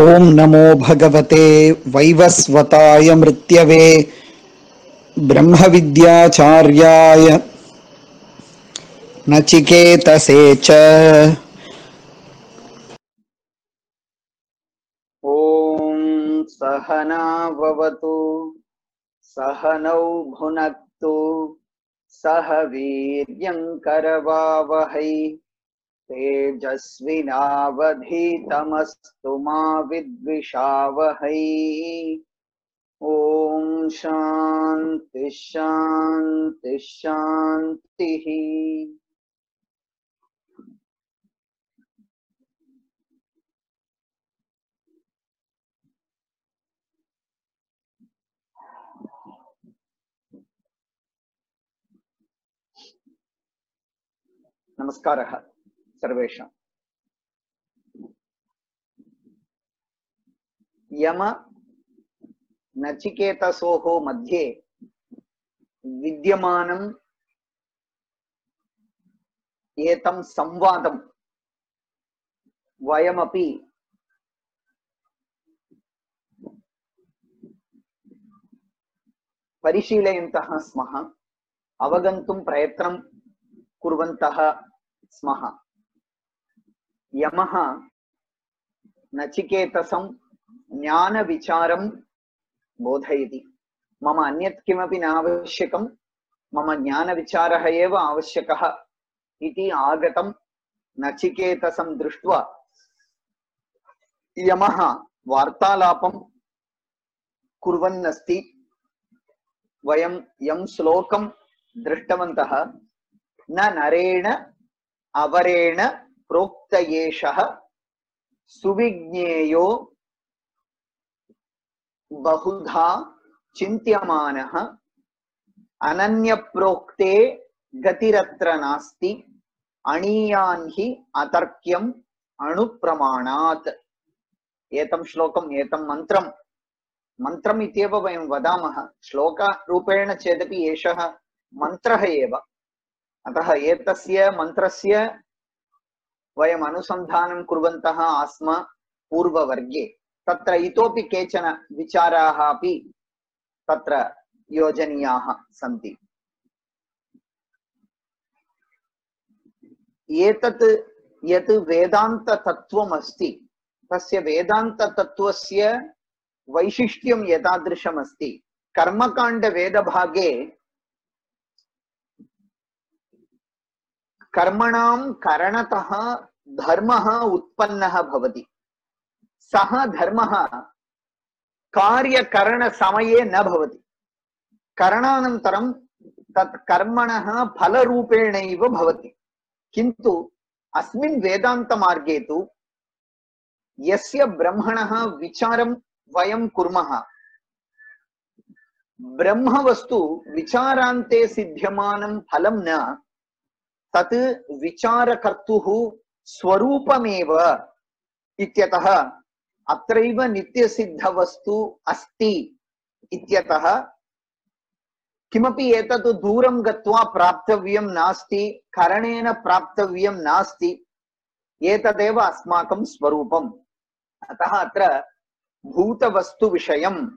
ओम नमो भगवते वैवस्वताय मृत्यवे ब्रह्मविद्याचार्याय नचिकेतसे च। ओम सहना भवतु सहनौ भुनक्तु सह वीर्यं करवावहै तेजस्विनावधीतमस्तु मा विद्विषावहै। ओम शांति शांति शांतिः। नमस्कारः सर्वेषां। यम नचिकेतसोः मध्ये विद्यमानं एतं संवादं वयमपि परिशीलयन्तः स्मः, अवगन्तुं प्रयत्नं कुर्वन्तः स्मः। यमः नचिकेतसं ज्ञानविचारं बोधयति। मम अन्यत् किमपि न आवश्यकं, मम ज्ञानविचारः एव आवश्यकः इति आगतं नचिकेतसं दृष्ट्वा यमः वार्तालापं कुर्वन्नस्ति। वयं यं श्लोकं दृष्टवन्तः, न नरेण अवरेण प्रोक्त एषः सुविज्ञेयो बहुधा चिन्त्यमानः अनन्यप्रोक्ते गतिरत्र नास्ति अणीयान् हि अतर्क्यम् अणुप्रमाणात्। एतं श्लोकम् एतं मन्त्रम् इत्येव वयं वदामः। श्लोकरूपेण चेदपि एषः मन्त्रः एव। अतः एतस्य मन्त्रस्य वयम् अनुसन्धानं कुर्वन्तः आस्म पूर्ववर्गे। तत्र इतोपि केचन विचाराः अपि तत्र योजनीयाः सन्ति। एतत् यत् वेदान्ततत्त्वम् अस्ति, तस्य वेदान्ततत्त्वस्य वैशिष्ट्यं एतादृशमस्ति। कर्मकाण्डवेदभागे कर्मणां करणतः धर्मः उत्पन्नः भवति। सः धर्मः कार्यकरणसमये न भवति। करणानन्तरं तत् कर्मणः फलरूपेणैव भवति। किन्तु अस्मिन् वेदान्तमार्गे तु यस्य ब्रह्मणः विचारं वयं कुर्मः, ब्रह्मवस्तु विचारान्ते सिद्ध्यमानं फलं न, तत् विचारकर्तुः स्वरूपमेव इत्यतः अत्रैव नित्यसिद्धवस्तु अस्ति इत्यतः किमपि एतत् दूरं गत्वा प्राप्तव्यं नास्ति, करणेन प्राप्तव्यं नास्ति, एतदेव अस्माकं स्वरूपम्। अतः अत्र भूतवस्तुविषयम्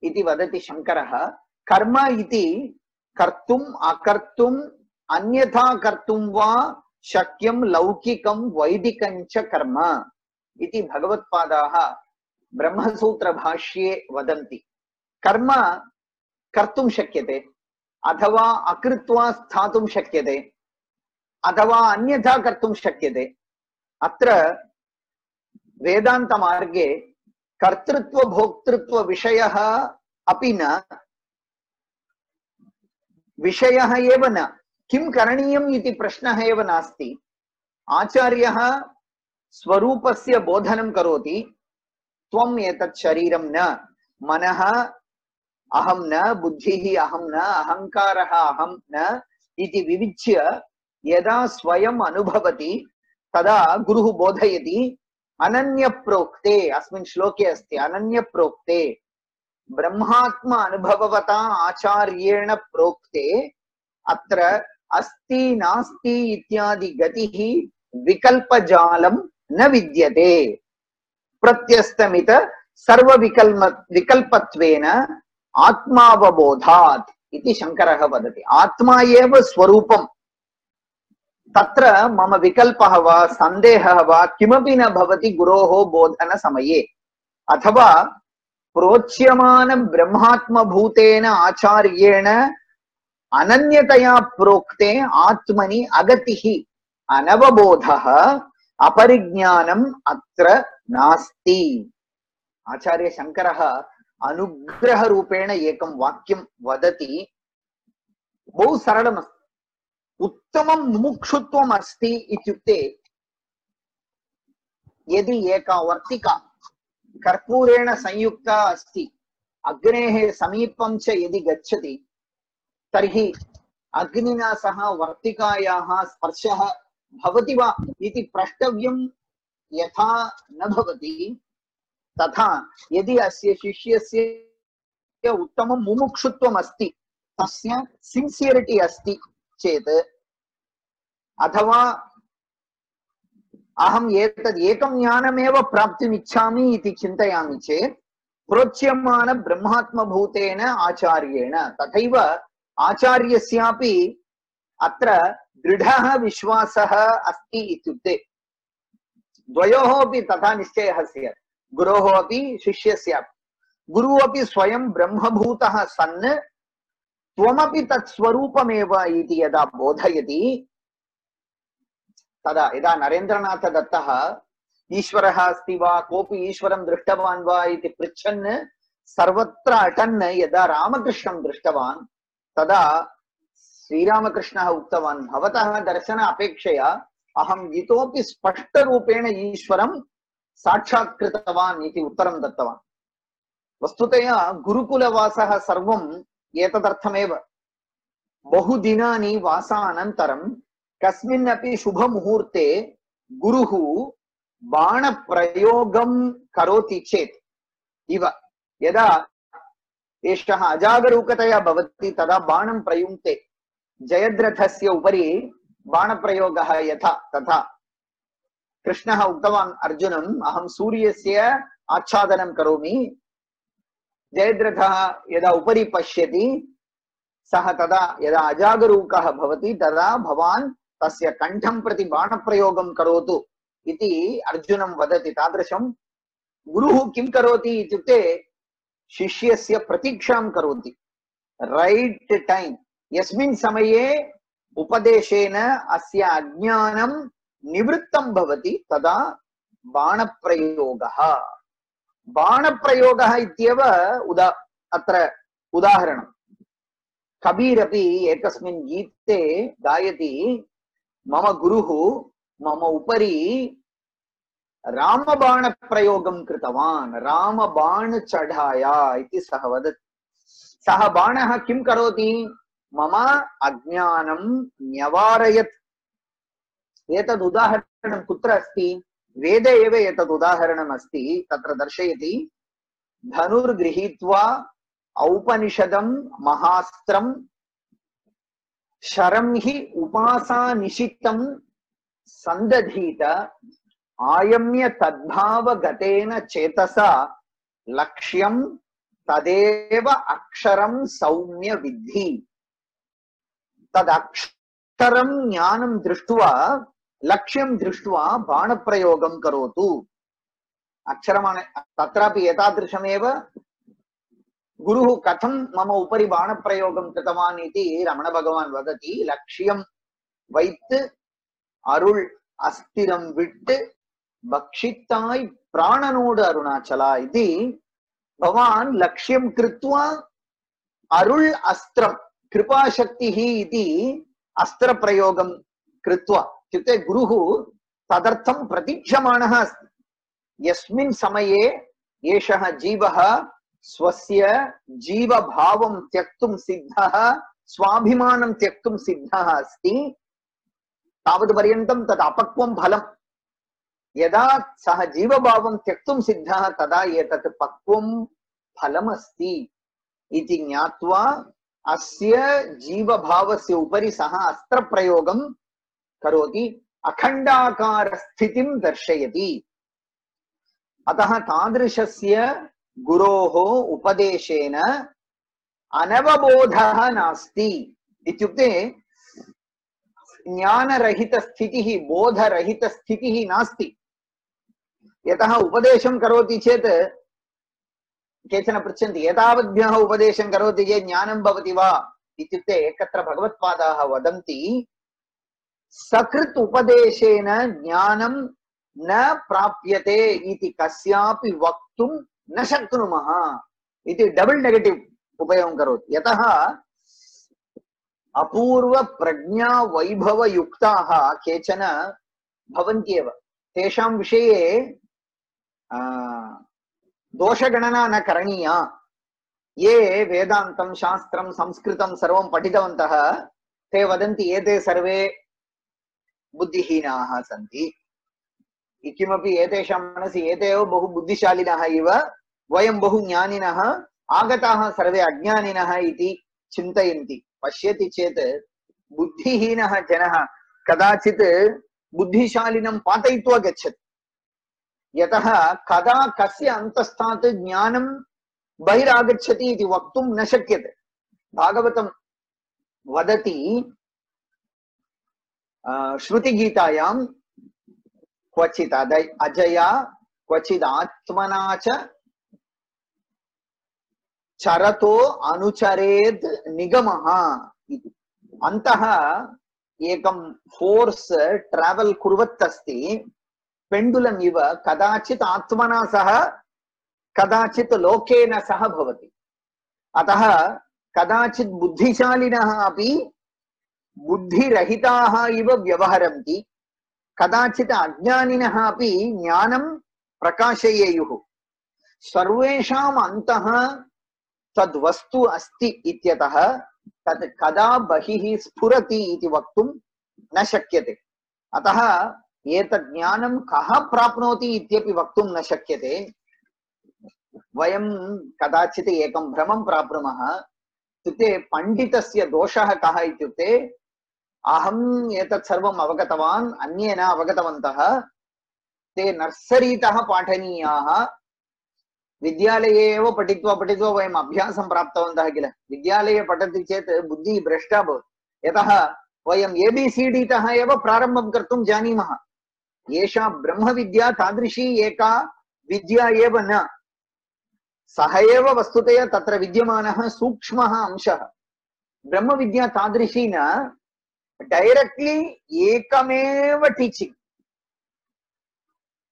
इति वदति शङ्करः। कर्म इति कर्तुम् अकर्तुम् अन्यथा कर्तुं वा शक्यं लौकिकं वैदिकं च कर्म इति भगवत्पादाः ब्रह्मसूत्रभाष्ये वदन्ति। कर्म कर्तुं शक्यते, अथवा अकृत्वा स्थातुं शक्यते, अथवा अन्यथा कर्तुं शक्यते। अत्र वेदान्तमार्गे कर्तृत्व भोक्तृत्व विषयः अपि न, विषयः एव न, किं करणीयम् इति प्रश्नः एव नास्ति। आचार्यः स्वरूपस्य बोधनं करोति। त्वम् एतत् शरीरं न, मनः अहं न, बुद्धिः अहं न, अहङ्कारः अहं न इति विविच्य यदा स्वयम् अनुभवति तदा गुरुः बोधयति। अनन्यप्रोक्ते, अस्मिन् श्लोके अस्ति अनन्यप्रोक्ते, ब्रह्मात्म अनुभववता आचार्येण प्रोक्ते अत्र अस्ति नास्ति इत्यादि गतिः विकल्पजालं न विद्यते। प्रत्यस्तमित सर्वविकल्पत्वेन आत्मावबोधात् इति शङ्करः वदति। आत्मा एव स्वरूपम्, तत्र मम विकल्पः वा सन्देहः वा किमपि न भवति गुरोः बोधनसमये। अथवा प्रोच्यमान ब्रह्मात्मभूतेन आचार्येण अनन्यतया प्रोक्ते आत्मनि अगतिः अनवबोधः अपरिज्ञानम् अत्र नास्ति। आचार्य शङ्करः अनुग्रहरूपेण एकं वाक्यं वदति, बहु सरलमस्ति। उत्तमं मुमुक्षुत्वम् अस्ति इत्युक्ते, यदि एका वर्तिका कर्पूरेण संयुक्ता अस्ति, अग्नेः समीपं च यदि गच्छति तर्हि अग्निना सह वर्तिकायाः स्पर्शः भवति वा इति प्रष्टव्यं यथा न भवति, तथा यदि अस्य शिष्यस्य उत्तमं मुमुक्षुत्वम् अस्ति, तस्य सिन्सियरिटी अस्ति चेत्, अथवा अहम् एतद् एकं ज्ञानमेव प्राप्तुम् इच्छामि इति चिन्तयामि चेत् प्रोच्यमान ब्रह्मात्मभूतेन आचार्येण, तथैव आचार्यस्यापि अत्र दृढः विश्वासः अस्ति इत्युक्ते द्वयोः अपि तथा निश्चयः स्यात्, गुरोः अपि शिष्यस्यापि। गुरुः अपि स्वयं ब्रह्मभूतः सन् त्वमपि तत् स्वरूपमेव इति यदा बोधयति, तदा यदा नरेन्द्रनाथ दत्तः ईश्वरः अस्ति वा, कोऽपि ईश्वरं दृष्टवान् वा इति पृच्छन् सर्वत्र अटन् यदा रामकृष्णं दृष्टवान्, तदा श्रीरामकृष्णः उक्तवान्, भवतः दर्शन अपेक्षया अहम् इतोपि स्पष्टरूपेण ईश्वरं साक्षात्कृतवान् इति उत्तरं दत्तवान्। वस्तुतया गुरुकुलवासः सर्वम् एतदर्थमेव। बहुदिनानि वासानन्तरं कस्मिन्नपि शुभमुहूर्ते गुरुः बाणप्रयोगं करोति चेत् इव, यदा एषः अजागरूकतया भवति तदा बाणं प्रयुङ्क्ते, जयद्रथस्य उपरि बाणप्रयोगः यथा तथा। कृष्णः उक्तवान् अर्जुनम्, अहं सूर्यस्य आच्छादनं करोमि। जयद्रथः यदा उपरि पश्यति, सः तदा यदा अजागरूकः भवति तदा भवान् तस्य कण्ठं प्रति बाणप्रयोगं करोतु इति अर्जुनं वदति। तादृशं गुरुः किं करोति इत्युक्ते शिष्यस्य प्रतीक्षां करोति, रैट् टैम्। यस्मिन् समये उपदेशेन अस्य अज्ञानं निवृत्तं भवति तदा बाणप्रयोगः। बाणप्रयोगः इत्येव अत्र उदाहरणम्। कबीर अपि एकस्मिन् गीते गायति, मम गुरुः मम उपरि रामबाणप्रयोगं कृतवान्, रामबाण चढ़ाया इति सः वदति। सः बाणः किं करोति? मम अज्ञानं न्यवारयत्। एतद् उदाहरणं कुत्र अस्ति? वेदे एव एतद् उदाहरणम् अस्ति। तत्र दर्शयति, धनुर्गृहीत्वा औपनिषदं महास्त्रं शरं हि उपासानिशितं संदधीत आयम्य तद्भावगतेन चेतसा लक्ष्यं तदेव अक्षरं सौम्य विद्धि। तदक्षरं ज्ञानं दृष्ट्वा लक्ष्यं दृष्ट्वा बाणप्रयोगं करोतु। अक्षरमाण तत्रापि एतादृशमेव गुरुः कथं मम उपरि बाणप्रयोगं कृतवान् इति रमण भगवान् वदति। लक्ष्यं वैत् अरुள் अस्थिरं विट् भक्षिताय प्राणनोड अरुणाचला इति। भवान् लक्ष्यं कृत्वा अरुள் अस्त्रं कृपाशक्तिः इति अस्त्रप्रयोगं कृत्वा, इत्युक्ते गुरुः तदर्थं प्रतीक्षमाणः अस्ति। यस्मिन् समये एषः जीवः स्वस्य जीवभावं त्यक्तुं सिद्धः, स्वाभिमानं त्यक्तुं सिद्धः अस्ति, तावत्पर्यन्तं तत् अपक्वं फलम्। यदा सः जीवभावं त्यक्तुं सिद्धः तदा एतत् पक्वं फलमस्ति इति ज्ञात्वा अस्य जीवभावस्य उपरि सः अस्त्रप्रयोगं करोति, अखण्डाकार स्थितिं दर्शयति। अतः तादृशस्य गुरोः उपदेशेन अनवबोधः नास्ति इत्युक्ते ज्ञानरहितस्थितिः बोधरहितस्थितिः नास्ति। यतः उपदेशं करोति चेत् केचन पृच्छन्ति एतावद्भ्यः उपदेशं करोति चेत् ज्ञानं भवति वा इत्युक्ते एकत्र भगवत्पादाः वदन्ति सकृत् उपदेशेन ज्ञानं न प्राप्यते इति कस्यापि वक्तुं न शक्नुमः इति डबल नेगेटिव उपयोगं करोति। यतः अपूर्व प्रज्ञा वैभव युक्ताः केचन भवन्त्येव, तेषां विषये दोषगणना न करणीया। ये वेदान्तं शास्त्रं संस्कृतं सर्वं पठितवन्तः ते वदन्ति एते सर्वे बुद्धिहीनाः सन्ति, किमपि एतेषां मनसि एते एव बहु बुद्धिशालिनः इव, वयं बहु ज्ञानिनः, आगताः सर्वे अज्ञानिनः इति चिन्तयन्ति। पश्यति चेत् बुद्धिहीनः जनः कदाचित् बुद्धिशालिनं पातयित्वा गच्छति। यतः कदा कस्य अन्तस्थात् ज्ञानं बहिरागच्छति इति वक्तुं न शक्यते। भागवतं वदति श्रुतिगीतायां क्वचित् अजया क्वचित् आत्मना च चरतो अनुचरेत् निगमः इति। अन्तः एकं फोर्स ट्रावल कुर्वत् अस्ति पेंडुलम इव, कदाचित् आत्मना सह कदाचित् लोकेन सह भवति। अतः कदाचित् बुद्धिशालिनः अपि बुद्धिरहिताः इव व्यवहरन्ति, कदाचित् अज्ञानिनः अपि ज्ञानं प्रकाशयेयुः। सर्वेषाम् अन्तः तद्वस्तु अस्ति इत्यतः तत् कदा बहिः स्फुरति इति वक्तुं न शक्यते। अतः एतत् ज्ञानं कः प्राप्नोति इत्यपि वक्तुं न शक्यते। वयं कदाचित् एकं भ्रमं प्राप्नुमः, इत्युक्ते पण्डितस्य दोषः कः इत्युक्ते अहम् एतत् सर्वम् अवगतवान्, अन्ये न अवगतवन्तः, ते नर्सरीतः पाठनीयाः, विद्यालये एव पठित्वा पठित्वा वयम् अभ्यासं प्राप्तवन्तः किल। विद्यालये पठति चेत् बुद्धिः भ्रष्टा भवति, यतः वयम् एबीसीडी तः एव प्रारम्भं कर्तुं जानीमः। एषा ब्रह्मविद्या तादृशी एका विद्या एव न, सः एव वस्तुतया तत्र विद्यमानः सूक्ष्मः अंशः। ब्रह्मविद्या तादृशी न, डैरेक्ट्ली एकमेव टीचिंग,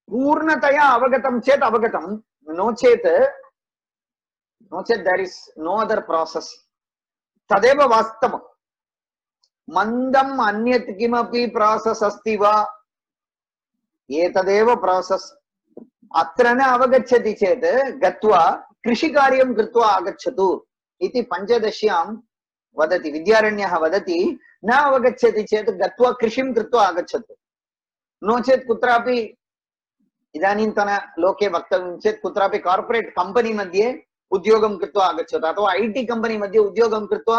पूर्णतया अवगतं चेत् अवगतं, नो चेत् there is no other process. तदेव वास्तवम्। मन्दम् अन्यत् किमपि प्रोसेस अस्ति वा, एतदेव प्रोसेस। अत्र न अवगच्छति चेत् गत्वा कृषिकार्यं कृत्वा आगच्छतु इति पञ्चदश्यां वदति, विद्यारण्यः वदति, न अवगच्छति चेत् गत्वा कृषिं कृत्वा आगच्छतु। नो चेत् कुत्रापि इदानीन्तन लोके वक्तव्यं चेत् कुत्रापि कार्पोरेट् कंपनी मध्ये उद्योगं कृत्वा आगच्छतु, अथवा आईटी कंपनी मध्ये उद्योगं कृत्वा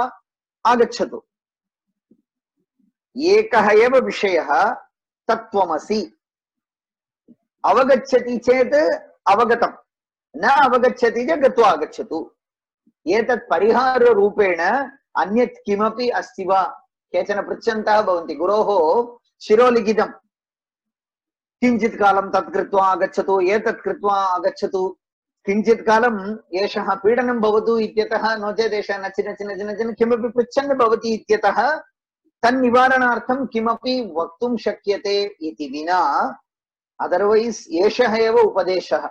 आगच्छतु। एकः एव विषयः तत्त्वमसि। अवगच्छति चेत् अवगतं, न अवगच्छति चेत् गत्वा आगच्छतु। एतत् परिहाररूपेण अन्यत् किमपि अस्ति वा? केचन पृच्छन्तः भवन्ति, गुरोः शिरोलिखितं, किञ्चित् कालं तत् कृत्वा आगच्छतु, एतत् कृत्वा आगच्छतु, किञ्चित् कालं एषः पीडनं भवतु इत्यतः, नो चेत् एषः नचि नचि नचि नचि किमपि पृच्छन् भवति इत्यतः तन्निवारणार्थं किमपि वक्तुं शक्यते इति विना, अदर्वैस् एषः एव उपदेशः,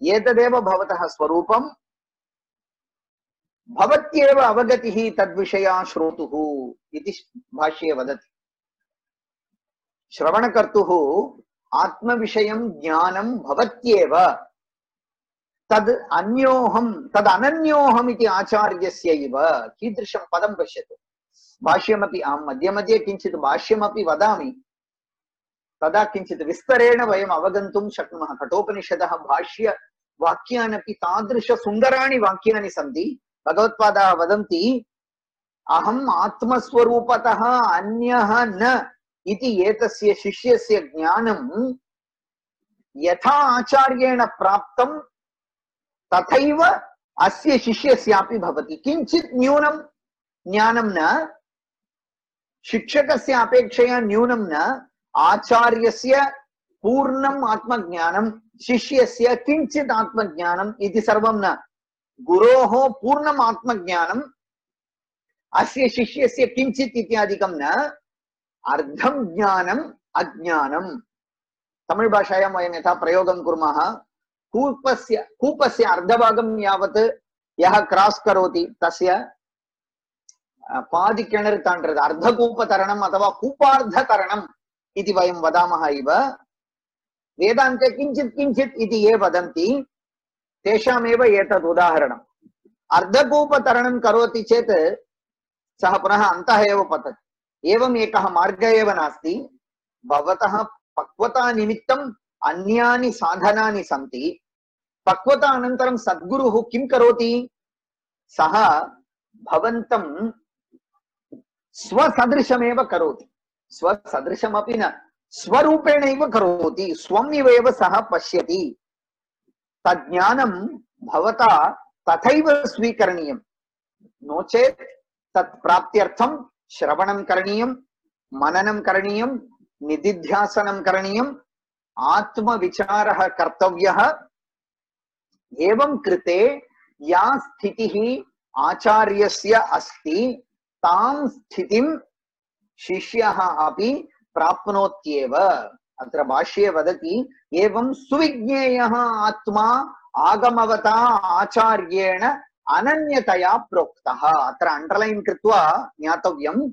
एतदेव भवतः स्वरूपं, भवत्येव अवगतिः तद्विषया श्रोतुः इति भाष्ये वदति। श्रवणकर्तुः आत्मविषयं ज्ञानं भवत्येव, तद् अन्योहं तद् अनन्योहम् इति आचार्यस्य इव। कीदृशं पदं पश्यतु। भाष्यमपि अहं मध्ये मध्ये किञ्चित् भाष्यमपि वदामि, तदा किञ्चित् विस्तरेण वयम् अवगन्तुं शक्नुमः। कठोपनिषदः भाष्य वाक्यानपि तादृश सुन्दराणि वाक्यानि सन्ति। भगवत्पादाः वदन्ति, अहम् आत्मस्वरूपतः अन्यः न इति एतस्य शिष्यस्य ज्ञानं यथा आचार्येण प्राप्तं तथैव अस्य शिष्यस्यापि भवति। किञ्चित् न्यूनं ज्ञानं न, शिक्षकस्य अपेक्षया न्यूनं न, आचार्यस्य पूर्णम् आत्मज्ञानं, शिष्यस्य किञ्चित् आत्मज्ञानम् इति सर्वं न। गुरोः पूर्णम् आत्मज्ञानम्, अस्य शिष्यस्य किञ्चित् इत्यादिकं न, अर्धं ज्ञानम् अज्ञानम्। तमिळ् भाषायां वयं यथा प्रयोगं कुर्मः, कूपस्य अर्धभागं यावत् यः क्रॉस् करोति तस्य पादि किणर् ताण्ड्रद् अर्धकूपतरणम् अथवा कूपार्धतरणम् इति वयं वदामः इव वेदान्ते किञ्चित् किञ्चित् इति ये वदन्ति तेषामेव एतद् उदाहरणम्। अर्धकूपतरणं करोति चेत् सः पुनः अन्तः एव पतति। एवम् एकः मार्गः एव नास्ति। भवतः पक्वता निमित्तम् अन्यानि साधनानि सन्ति। पक्वता अनन्तरं सद्गुरुः किं करोति? सः भवन्तं स्वसदृशमेव करोति। स्वसदृशमपि न, स्वरूपेणैव करोति। स्वम् इव एव सः पश्यति। तज्ज्ञानं भवता तथैव स्वीकरणीयं। नो चेत् तत् प्राप्त्यर्थं श्रवणं करणीयं, मननं करणीयं, निदिध्यासनं करणीयम्, आत्मविचारः कर्तव्यः। एवं कृते या स्थितिः आचार्यस्य अस्ति तां स्थितिं शिष्यः अपि प्राप्नोत्येव। अत्र भाष्ये वदति एवं सुविज्ञेयः आत्मा आगमवता आचार्येण अनन्यतया प्रोक्तः। अत्र अंडरलाइन कृत्वा ज्ञातव्यं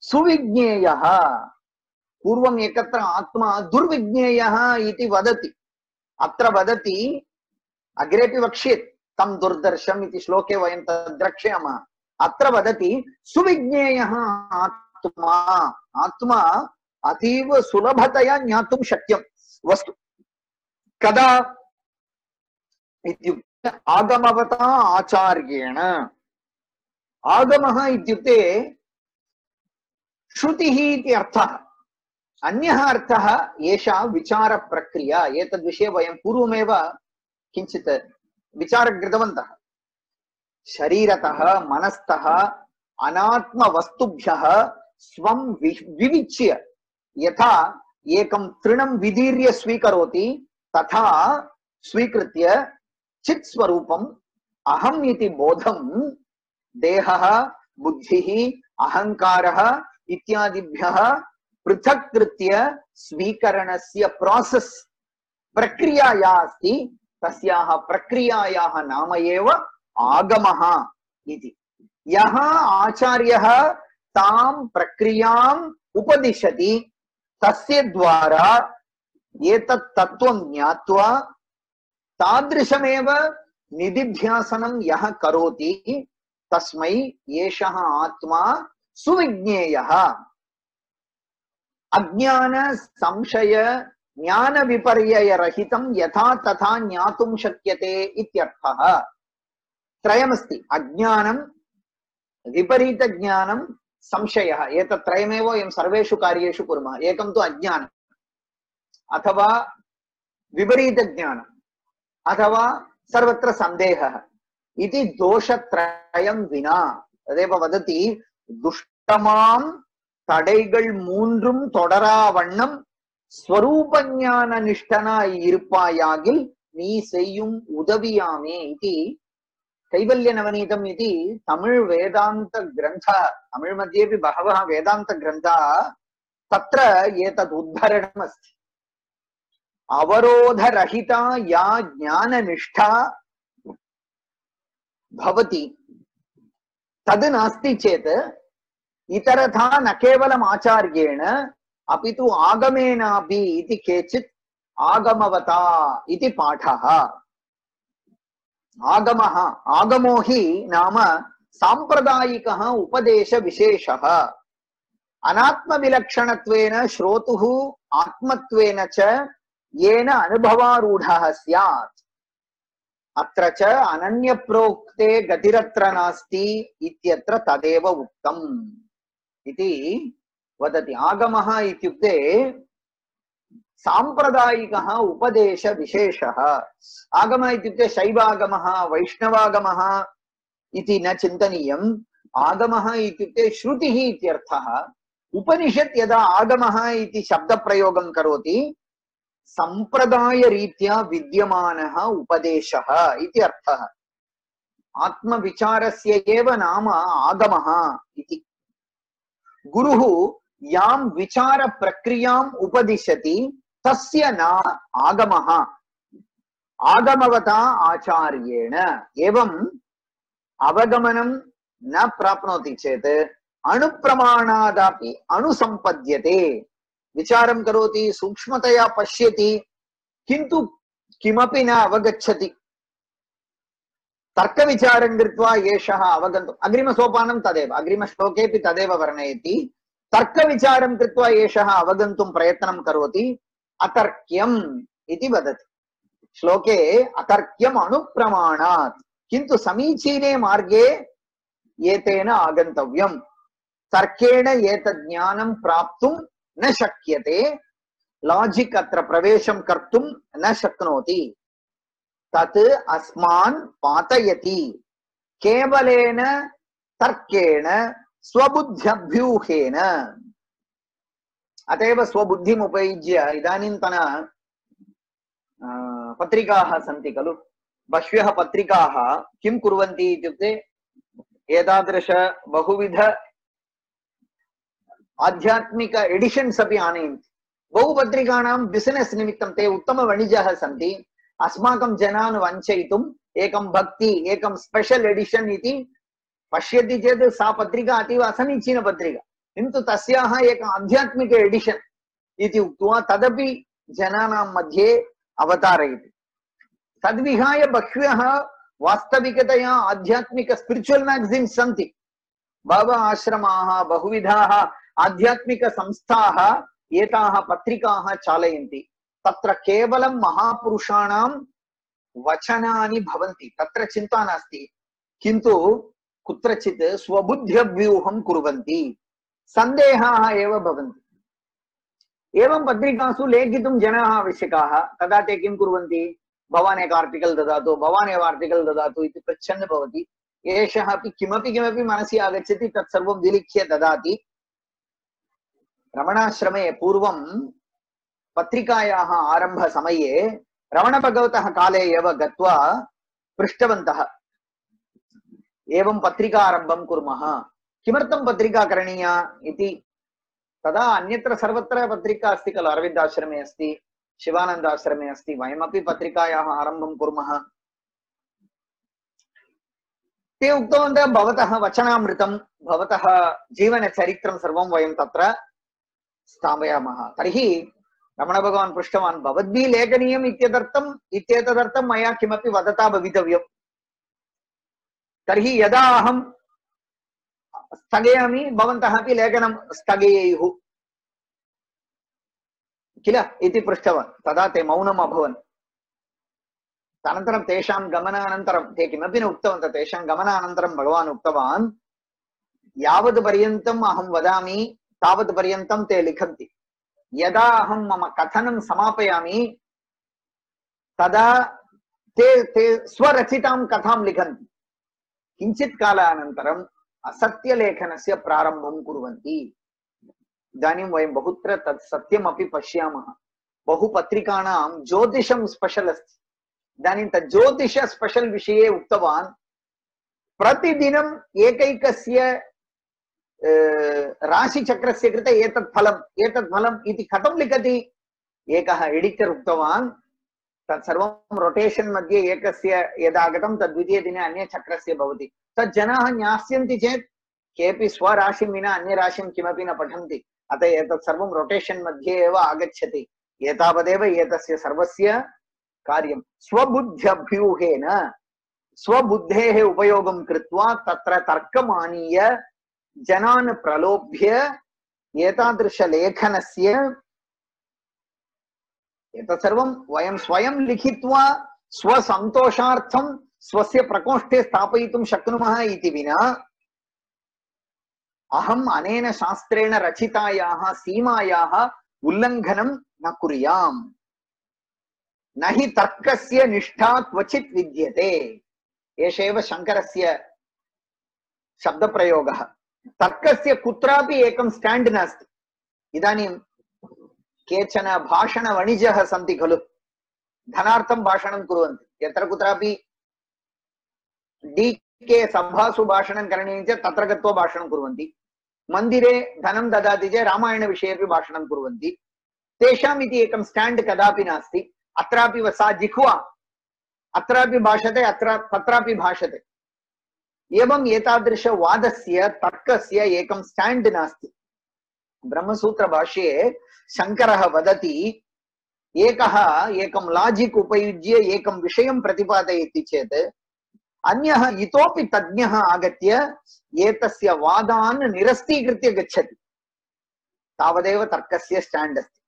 सुविज्ञेयः। पूर्वम् एकत्र आत्मा दुर्विज्ञेयः इति वदति। अत्र वदति, अग्रेपि वक्ष्येत् तं दुर्दर्शम् इति श्लोके वयं तद् द्रक्ष्यामः। अत्र वदति सुविज्ञेयः आत्मा। आत्मा अतीव सुलभतया ज्ञातुं शक्यं वस्तु। कदा इत्युक्ते आगमवता आचार्येण। आगमः इत्युक्ते श्रुतिः इति अर्थः। अन्यः अर्थः एषा विचारप्रक्रिया। एतद्विषये वयं पूर्वमेव किञ्चित् विचारं कृतवन्तः। शरीरतः मनस्तः अनात्मवस्तुभ्यः स्वं विविच्य यथा एकं तृणं विदीर्य स्वीकरोति तथा स्वीकृत्य चित् स्वरूपम् अहम् इति बोधं देहः, बुद्धिः, अहङ्कारः इत्यादिभ्यः पृथक् कृत्य स्वीकरणस्य प्रोसेस् प्रक्रिया या अस्ति तस्याः प्रक्रियायाः नाम एव आगमः इति। यः आचार्यः तां प्रक्रियाम् उपदिशति तस्य द्वारा एतत् तत्त्वं ज्ञात्वा तादृशमेव निदिध्यासनं यः करोति तस्मै एषः आत्मा सुविज्ञेयः। अज्ञान संशय ज्ञान विपर्यय रहितं यथा तथा ज्ञातुं शक्यते इत्यर्थः। त्रयमस्ति, अज्ञानं, विपरीत ज्ञानं, संशयः। एतत् त्रयमेव वयं सर्वेषु कार्येषु कुर्मः। एकं तु अज्ञानम् अथवा विपरीत ज्ञानम् अथवा सर्वत्र सन्देहः इति दोषत्रयं विना। तदेव वदति दुष्टमां தடைகள் மூன்றும் தொடரா வண்ணம் ஸ்வரூப ஞான நிஷ்டனாய் இருப்பாயாகில் நீ செய்யும் உதவியாமே इति कैवल्य नवनीतम् इति तमिळ् वेदान्त ग्रन्थः। तमिळ् मध्येपि बहवः वेदान्त ग्रन्थाः तत्र एतद् उद्धरणम् अस्ति। अवरोधरहिता या ज्ञाननिष्ठा भवति तद् नास्ति चेत् इतरथा न केवलम् आचार्येण अपि तु आगमेनापि इति केचित् आगमवता इति पाठः। आगमः, आगमो हि नाम सांप्रदायिकः उपदेशविशेषः। अनात्मविलक्षणत्वेन श्रोतुः आत्मत्वेन च येन अनुभवारूढः स्यात्। अत्र च अनन्यप्रोक्ते गतिरत्र नास्ति इत्यत्र तदेव उक्तम् इति वदति। आगमः इत्युक्ते साम्प्रदायिकः उपदेश विशेषः। आगमः इत्युक्ते शैवागमः वैष्णवागमः इति न चिन्तनीयम्। आगमः इत्युक्ते श्रुतिः इत्यर्थः। उपनिषत् यदा आगमः इति शब्दप्रयोगं करोति सम्प्रदायरीत्या विद्यमानः उपदेशः इति अर्थः। आत्मविचारस्य एव नाम आगमः इति। गुरुः यां विचारप्रक्रियाम् उपदिशति तस्य नाम आगमः। आगमवता आचार्येण एवम् अवगमनं न प्राप्नोति चेत् अणुप्रमाणादपि अनुसम्पद्यते। विचारं करोति, सूक्ष्मतया पश्यति, किन्तु किमपि न अवगच्छति। तर्कविचारं कृत्वा एषः अवगन्तुम् अग्रिमसोपानं तदेव, अग्रिमश्लोकेऽपि तदेव वर्णयति। तर्कविचारं कृत्वा एषः अवगन्तुं प्रयत्नं करोति, अतर्क्यम् इति वदति श्लोके। अतर्क्यम् अणुप्रमाणात्, किन्तु समीचीने मार्गे एतेन आगन्तव्यम्। तर्केण एतद् ज्ञानं प्राप्तुं न शक्यते। लाजिक् अत्र प्रवेशं कर्तुं न शक्नोति। तत् अस्मान् पातयति। केवलेन तर्केण स्वबुद्ध्यभ्यूहेन। अतएव स्वबुद्धिम् उपयुज्य इदानीन्तन पत्रिकाः सन्ति खलु, बह्व्यः पत्रिकाः किं कुर्वन्ति इत्युक्ते एतादृश बहुविध आध्यात्मिक एडिशन्स् अपि आनयन्ति। बहु पत्रिकाणां बिसिनेस् निमित्तं ते उत्तमवणिजः सन्ति। अस्माकं जनान् वञ्चयितुम् एकं भक्ति, एकं स्पेशल् एडिशन् इति पश्यति चेत् सा पत्रिका अतीव असमीचीन पत्रिका, किन्तु तस्याः एक आध्यात्मिक एडिशन् इति उक्त्वा तदपि जनानां मध्ये अवतारयति। तद्विहाय बह्व्यः वास्तविकतया आध्यात्मिक स्पिरिचुवल् मैगजीन्स् सन्ति। बहवः आश्रमाः, बहुविधाः आध्यात्मिक संस्थाः एताः पत्रिकाः चालयन्ति। तत्र केवलं महापुरुषाणां वचनानि भवन्ति, तत्र चिन्ता नास्ति, किन्तु कुत्रचित् स्वबुद्ध्यव्यूहं कुर्वन्ति, सन्देहाः एव भवन्ति। एवं पत्रिकासु लेखितुं जनाः आवश्यकाः। तदा ते किं कुर्वन्ति, भवान् एक आर्टिकल् ददातु, भवान् एव आर्टिकल् ददातु इति पृच्छन् भवति। एषः अपि किमपि मनसि आगच्छति तत्सर्वं विलिख्य ददाति। रमणाश्रमे पूर्वं पत्रिकायाः आरम्भसमये रमणभगवतः काले एव गत्वा पृष्टवन्तः, एवं पत्रिका आरम्भं कुर्मः, किमर्थं पत्रिका करणीया इति। तदा अन्यत्र सर्वत्र पत्रिका अस्ति खलु, अरविन्दाश्रमे अस्ति, शिवानन्दाश्रमे अस्ति, वयमपि पत्रिकायाः आरम्भं कुर्मः। ते उक्तवन्तः भवतः वचनामृतं, भवतः जीवनचरित्रं सर्वं वयं तत्र स्थापयामः। तर्हि रमणभगवान् पृष्टवान्, भवद्भिः लेखनीयम् इत्येतदर्थं मया किमपि वदता भवितव्यम्। तर्हि यदा अहं स्थगयामि भवन्तः अपि लेखनं स्थगयेयुः किल इति पृष्टवान्। तदा ते मौनम् अभवन्। अनन्तरं तेषां गमनानन्तरं ते किमपि न उक्तवन्तः। तेषां गमनानन्तरं भगवान् उक्तवान्, यावत् पर्यन्तम् अहं वदामि तावत् पर्यन्तं ते लिखन्ति। यदा अहं मम कथनं समापयामि तदा ते स्वरचितां कथां लिखन्ति। किञ्चित् कालानन्तरम् असत्यलेखनस्य प्रारम्भं कुर्वन्ति। इदानीं वयं बहुत्र तत् सत्यमपि पश्यामः। बहुपत्रिकाणां ज्योतिषं स्पेशल् अस्ति। इदानीं तत् ज्योतिष स्पेशल् विषये उक्तवान्, प्रतिदिनम् एकैकस्य राशिचक्रस्य कृते एतत् फलम् इति कथं लिखति। एकः एडिटर् उक्तवान्, तत्सर्वं रोटेशन् मध्ये एकस्य यदागतं तद् द्वितीयदिने अन्यचक्रस्य भवति। तत् जनाः ज्ञास्यन्ति चेत् केऽपि स्वराशिं विना अन्यराशिं किमपि न पठन्ति। अतः एतत् सर्वं रोटेशन् मध्ये एव आगच्छति। एतावदेव एतस्य सर्वस्य कार्यं। स्वबुद्ध्यभ्यूहेन, स्वबुद्धेः उपयोगं कृत्वा तत्र तर्कमानीय जनान् प्रलोभ्य एतादृशलेखनस्य एतत् सर्वं वयं स्वयं लिखित्वा स्वसन्तोषार्थं स्वस्य प्रकोष्ठे स्थापयितुं शक्नुमः इति विना अहम् अनेन शास्त्रेण रचितायाः सीमायाः उल्लङ्घनं न कुर्याम् न हि तर्कस्य निष्ठा क्वचित् विद्यते। एष एव शङ्करस्य शब्दप्रयोगः। तर्कस्य कुत्रापि एकं स्टाण्ड् नास्ति। इदानीं केचन भाषणवणिजः सन्ति खलु, धनार्थं भाषणं कुर्वन्ति। यत्र कुत्रापि डीके सभासु भाषणं करणीयं चेत् तत्र गत्वा भाषणं कुर्वन्ति। मन्दिरे धनं ददाति चेत् रामायणविषयेपि भाषणं कुर्वन्ति। तेषाम् इति एकं स्टाण्ड् कदापि नास्ति। अत्रापि सा जिह्वा अत्रापि भाषते, अत्र तत्रापि भाषते। एवं एतादृशवादस्य तर्कस्य एकं स्टाण्ड् नास्ति। ब्रह्मसूत्रभाष्ये शङ्करः वदति, एकं लाजिक् उपयुज्य एकं विषयं प्रतिपादयति चेत् अन्यः इतोपि तज्ञः आगत्य एतस्य वादान् निरस्तीकृत्य गच्छति। तावदेव तर्कस्य स्टाण्ड् अस्ति।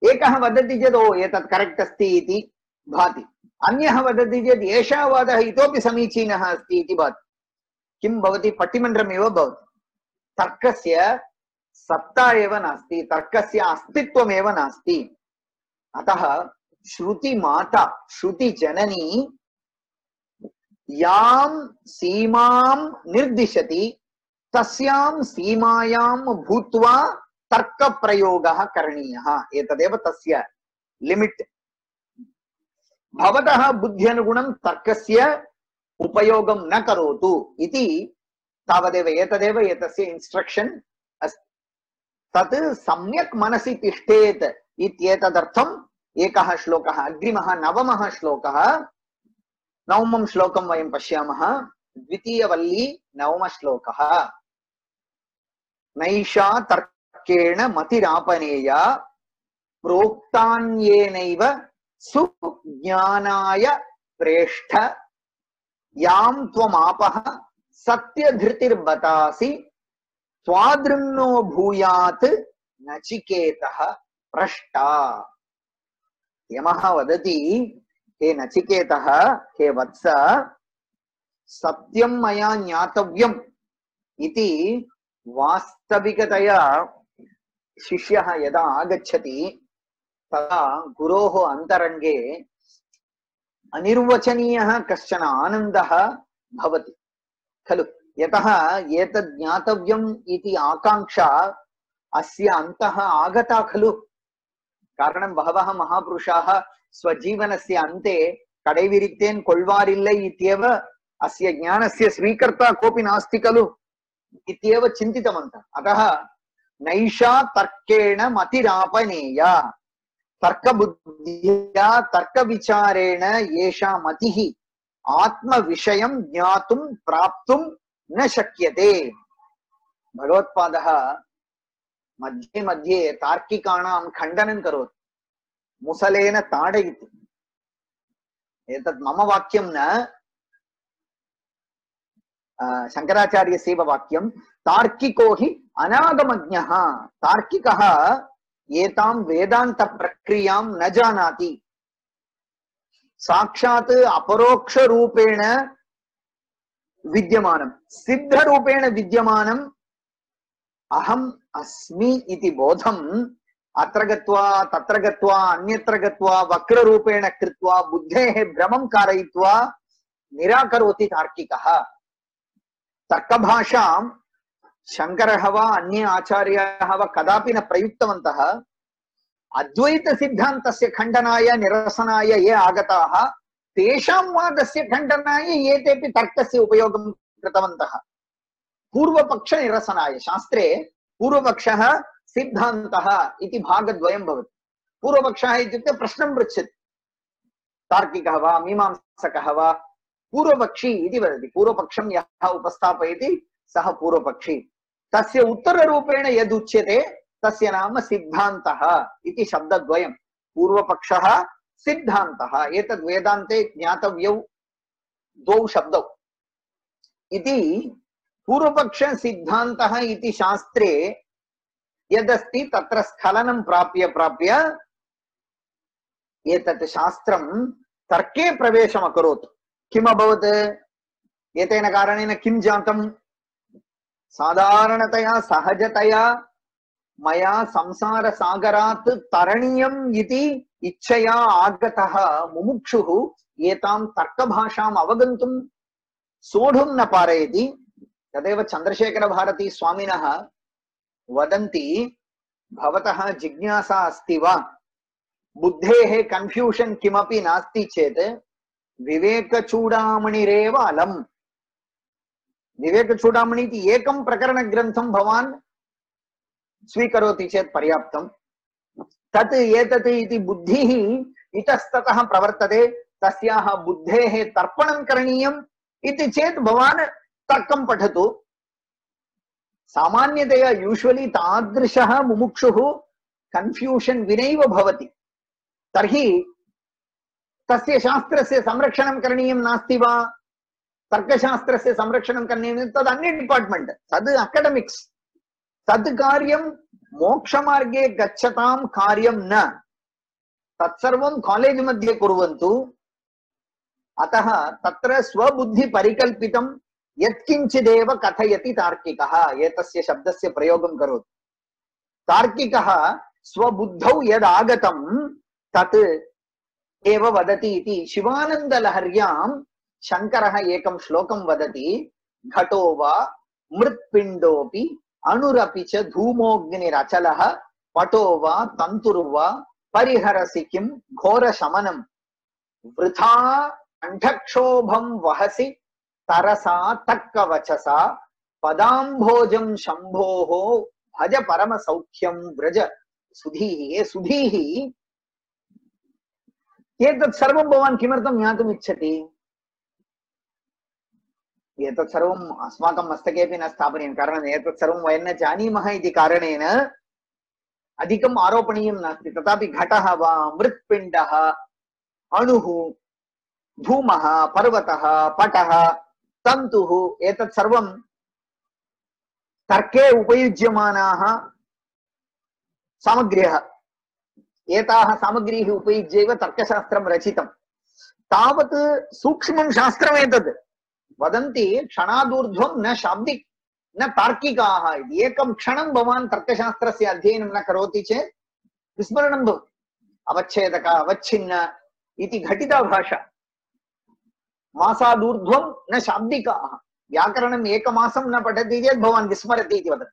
एकः वदति चेत् ओ एतत् करेक्ट् अस्ति इति भाति, अन्यः वदति चेत् एषः वादः इतोपि समीचीनः अस्ति इति भाति। किं भवति? पट्टिमन्त्रमेव भवति। तर्कस्य सत्ता एव नास्ति, तर्कस्य अस्तित्वमेव नास्ति। अतः श्रुतिमाता श्रुतिजननी यां सीमां निर्दिशति तस्यां सीमायां भूत्वा तर्कप्रयोगः करणीयः। एतदेव तस्य लिमिट्। भवतः बुद्ध्यनुगुणं तर्कस्य उपयोगं न करोतु इति तावदेव। एतदेव एतस्य इन्स्ट्रक्शन् अस्ति। तत् सम्यक् मनसि तिष्ठेत् इत्येतदर्थम् एकः श्लोकः, अग्रिमः नवमः श्लोकः, नवमं श्लोकं वयं पश्यामः। द्वितीयवल्ली नवमश्लोकः। नैषा तर्केण मतिरापनेया प्रोक्तान्येनैव सुज्ञानाय प्रेष्ठ यां त्वमापः सत्यधृतिर्बतासि त्वादृन्नो भूयात् नचिकेतः पृष्टा। यमः वदति, हे नचिकेतः, हे वत्स, सत्यं मया ज्ञातव्यम् इति वास्तविकतया शिष्यः यदा आगच्छति तदा गुरोः अन्तरङ्गे अनिर्वचनीयः कश्चन आनन्दः भवति खलु। यतः एतद् ज्ञातव्यम् इति आकाङ्क्षा अस्य अन्तः आगता खलु। कारणं बहवः महापुरुषाः स्वजीवनस्य अन्ते कडेविरिक्तेन् कोल्वारिल्लै इत्येव अस्य ज्ञानस्य स्वीकर्ता कोऽपि नास्ति खलु इत्येव चिन्तितवन्तः। अतः नैषा तर्केण मतिरापनेया, तर्कबुद्ध्या तर्कविचारेण एषा मतिः आत्मविषयं ज्ञातुं प्राप्तुं न शक्यते। भगवत्पादः मध्ये मध्ये तार्किकाणां खण्डनं करोति, मुसलेन ताडयति। एतत् मम वाक्यं न, शङ्कराचार्यस्यैव वाक्यं। तार्किको हि अनागमज्ञः। तार्किकः एतां वेदान्तप्रक्रियां न जानाति। साक्षात् अपरोक्षरूपेण विद्यमानं, सिद्धरूपेण विद्यमानं अहम् अस्मि इति बोधम् अत्र गत्वा तत्र गत्वा अन्यत्र गत्वा वक्ररूपेण कृत्वा बुद्धेः भ्रमं कारयित्वा निराकरोति तार्किकः। तर्कभाषां शङ्करः वा अन्ये आचार्याः वा कदापि न प्रयुक्तवन्तः। अद्वैतसिद्धान्तस्य खण्डनाय निरसनाय ये आगताः तेषां वादस्य खण्डनाय एतेपि तर्कस्य उपयोगं कृतवन्तः। पूर्वपक्षनिरसनाय शास्त्रे पूर्वपक्षः सिद्धान्तः इति भागद्वयं भवति। पूर्वपक्षः इत्युक्ते प्रश्नं पृच्छति, तार्किकः वा मीमांसकः वा। पूर्वपक्षी इति वदति, पूर्वपक्षं यः उपस्थापयति सः पूर्वपक्षी। तस्य उत्तररूपेण यदुच्यते तस्य नाम सिद्धान्तः इति शब्दद्वयं। पूर्वपक्षः सिद्धान्तः, एतद् वेदान्ते ज्ञातव्यौ द्वौ शब्दौ इति। पूर्वपक्ष सिद्धान्तः इति शास्त्रे यदस्ति तत्र स्खलनं प्राप्य एतत् शास्त्रं तर्के प्रवेशमकरोत्। किम् अभवत्? एतेन कारणेन किं जातं? साधारणतया सहजतया मया संसार सागरात् तरणीयम् इति इच्छया आगतः मुमुक्षुः एतां तर्कभाषाम् अवगन्तुं सोढुं न पारयति। तदेव चन्द्रशेखर भारती स्वामिनः वदन्ति, भवतः जिज्ञासा अस्ति वा, बुद्धेः कन्फ्यूषन् किमपि नास्ति चेत् विवेकचूडामणिरेव अलम्। विवेकचूडामणि इति एकं प्रकरणग्रन्थं भवान् स्वीकरोति चेत् पर्याप्तम्। तत् एतत् इति बुद्धिः इतस्ततः प्रवर्तते, तस्याः बुद्धेः तर्पणं करणीयम् इति चेत् भवान् तर्कं पठतु। सामान्यतया यूजुवली तादृशः मुमुक्षुः कन्फ्यूषन् विनैव भवति। तर्हि तस्य शास्त्रस्य संरक्षणं करणीयं नास्ति वा? तर्कशास्त्रस्य संरक्षणं करणीयं, तद् अन्य डिपार्ट्मेण्ट्, तद् अकाडेमिक्स्। तद् कार्यं मोक्षमार्गे गच्छतां कार्यं न, तत्सर्वं कालेज् मध्ये कुर्वन्तु। अतः तत्र स्वबुद्धि परिकल्पितं यत्किञ्चिदेव कथयति तार्किकः, एतस्य शब्दस्य प्रयोगं करोति। तार्किकः स्वबुद्धौ यदागतं तत् एव वदति इति शिवानन्दलहर्यां शङ्करः एकं श्लोकं वदति। घटो वा मृत्पिण्डोऽपि अणुरपि च धूमोऽग्निरचलः पटो वा तन्तुर्वा परिहरसि किं घोरशमनं वृथा कण्ठक्षोभं वहसि तरसा तक्कवचसा पदाम्भोजं शम्भोः भज परमसौख्यं व्रज सुधीः। सुधीः, एतत् सर्वं भवान् किमर्थं ज्ञातुम् इच्छति? एतत् सर्वम् अस्माकं मस्तकेपि न स्थापनीयं, कारणम् एतत् सर्वं वयं न जानीमः इति कारणेन अधिकम् आरोपणीयं नास्ति। तथापि घटः वा मृत्पिण्डः अणुः धूमः पर्वतः पटः तन्तुः एतत् सर्वं तर्के उपयुज्यमानाः सामग्र्यः। एताः सामग्रीः उपयुज्यैव तर्कशास्त्रं रचितं। तावत् सूक्ष्मं शास्त्रमेतत्। वदन्ति क्षणादूर्ध्वं न शाब्दिक न तार्किकाः इति। एकं क्षणं भवान् तर्कशास्त्रस्य अध्ययनं न करोति चेत् विस्मरणं भवति। अवच्छेदक अवच्छिन्न इति घटिता भाषा। मासादूर्ध्वं न शाब्दिकाः, व्याकरणम् एकमासं न पठति चेत् भवान् विस्मरति इति वदति।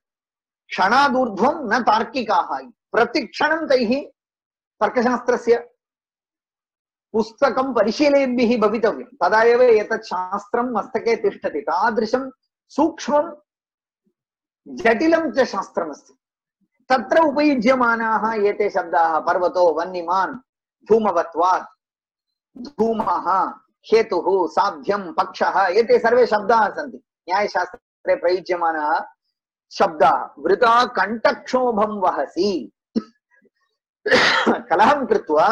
क्षणादूर्ध्वं न तार्किकाः, प्रतिक्षणं तैः तर्कशास्त्रस्य पुस्तकं परिशीलयद्भिः भवितव्यं, तदा एव एतत् शास्त्रं मस्तके तिष्ठति। तादृशं सूक्ष्मं जटिलं च शास्त्रमस्ति। तत्र उपयुज्यमानाः एते शब्दाः पर्वतो वह्निमान् धूमवत्वात्, धूमः हेतुः साध्यं पक्षः, एते सर्वे शब्दाः सन्ति न्यायशास्त्रे प्रयुज्यमानाः शब्दाः। वृथा कण्ठक्षोभं वहसि, कलहं कृत्वा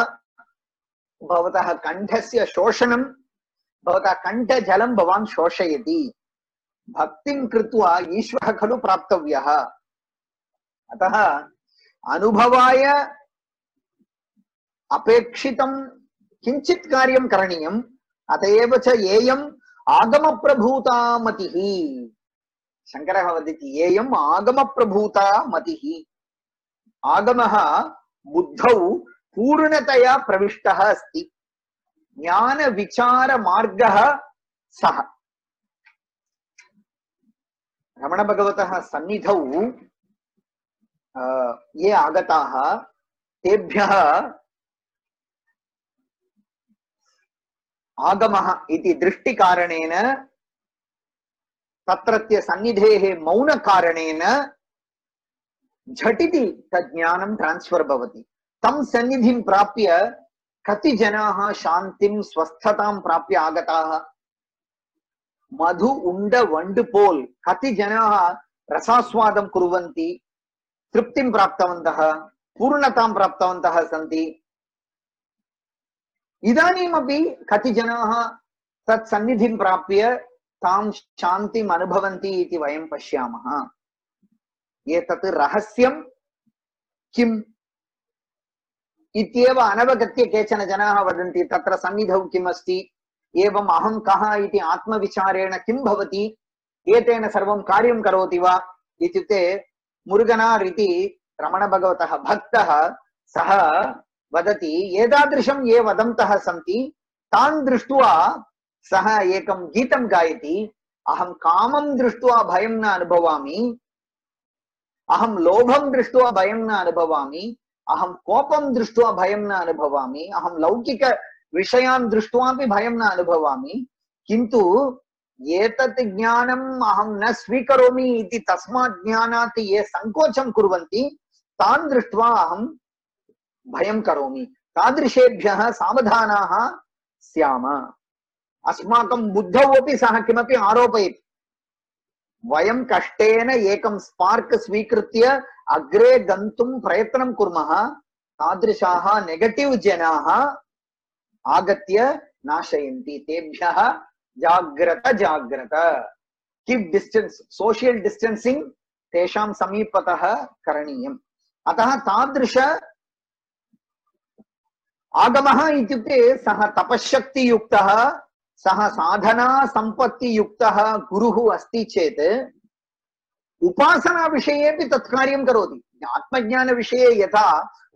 भवतः कण्ठस्य शोषणं, भवतः कण्ठजलं भवान् शोषयति। भक्तिं कृत्वा ईश्वरः खलु प्राप्तव्यः। अतः अनुभवाय अपेक्षितं किञ्चित् कार्यं करणीयम्। अत एव च येयम् आगमप्रभूता मतिः, शङ्करः वदति येयम् आगमप्रभूता मतिः। आगमः बुद्धौ पूर्णतया प्रविष्टः अस्ति, ज्ञानविचारमार्गः सः। रमणभगवतः सन्निधौ ये आगताः तेभ्यः आगमः इति दृष्टिकारणेन, तत्रत्य सन्निधेः मौनकारणेन झटिति तज्ज्ञानं ट्रान्स्फर् भवति। तं सन्निधिं प्राप्य कति जनाः शान्तिं स्वस्थतां प्राप्य आगताः। मधु उण्ड वण्ड पोल् कति जनाः रसास्वादं कुर्वन्ति, तृप्तिं प्राप्तवन्तः, पूर्णतां प्राप्तवन्तः सन्ति। इदानीमपि कति जनाः तत् सन्निधिं प्राप्य तां शान्तिम् अनुभवन्ति इति वयं पश्यामः। एतत् रहस्यं किम् इत्येव अनवगत्य केचन जनाः वदन्ति। तत्र सन्निधौ किम् अस्ति, एवम् अहं कः इति आत्मविचारेण किं भवति, एतेन सर्वं कार्यं करोति वा इत्युक्ते मुरुगनार् इति रमणभगवतः भक्तः सः वदति एतादृशं ये वदन्तः सन्ति तान् दृष्ट्वा सः एकं गीतं गायति अहं कामं दृष्ट्वा भयं न अनुभवामि अहं लोभं दृष्ट्वा भयं न अनुभवामि अहं कोपं दृष्ट्वा भयं न अनुभवामि अहं लौकिक विषयान् दृष्ट्वापि भयं न अनुभवामि किन्तु एतत् ज्ञानम् अहं न स्वीकरोमि इति तस्मात् ज्ञानात् ये संकोचं कुर्वन्ति तान् दृष्ट्वा अहं भयं करोमि तादृशेभ्यः सावधानाः स्याम अस्माकं बुद्धौ अपि सः किमपि आरोपयति वयं कष्टेन एकं स्पार्क् स्वीकृत्य अग्रे गन्तुं प्रयत्नं कुर्मः तादृशाः नेगेटिव् जनाः आगत्य नाशयन्ति तेभ्यः जाग्रत जाग्रत कीप् डिस्टेन्स् सोशियल् डिस्टेन्सिंग तेषां समीपतः करणीयम् अतः तादृश आगमः इत्युक्ते सः तपश्शक्ति युक्तः सः साधना संपत्ति युक्तः गुरुः अस्ति चेत् उपासना विषयेपि तत् कार्यं करोति आत्मज्ञान विषये यथा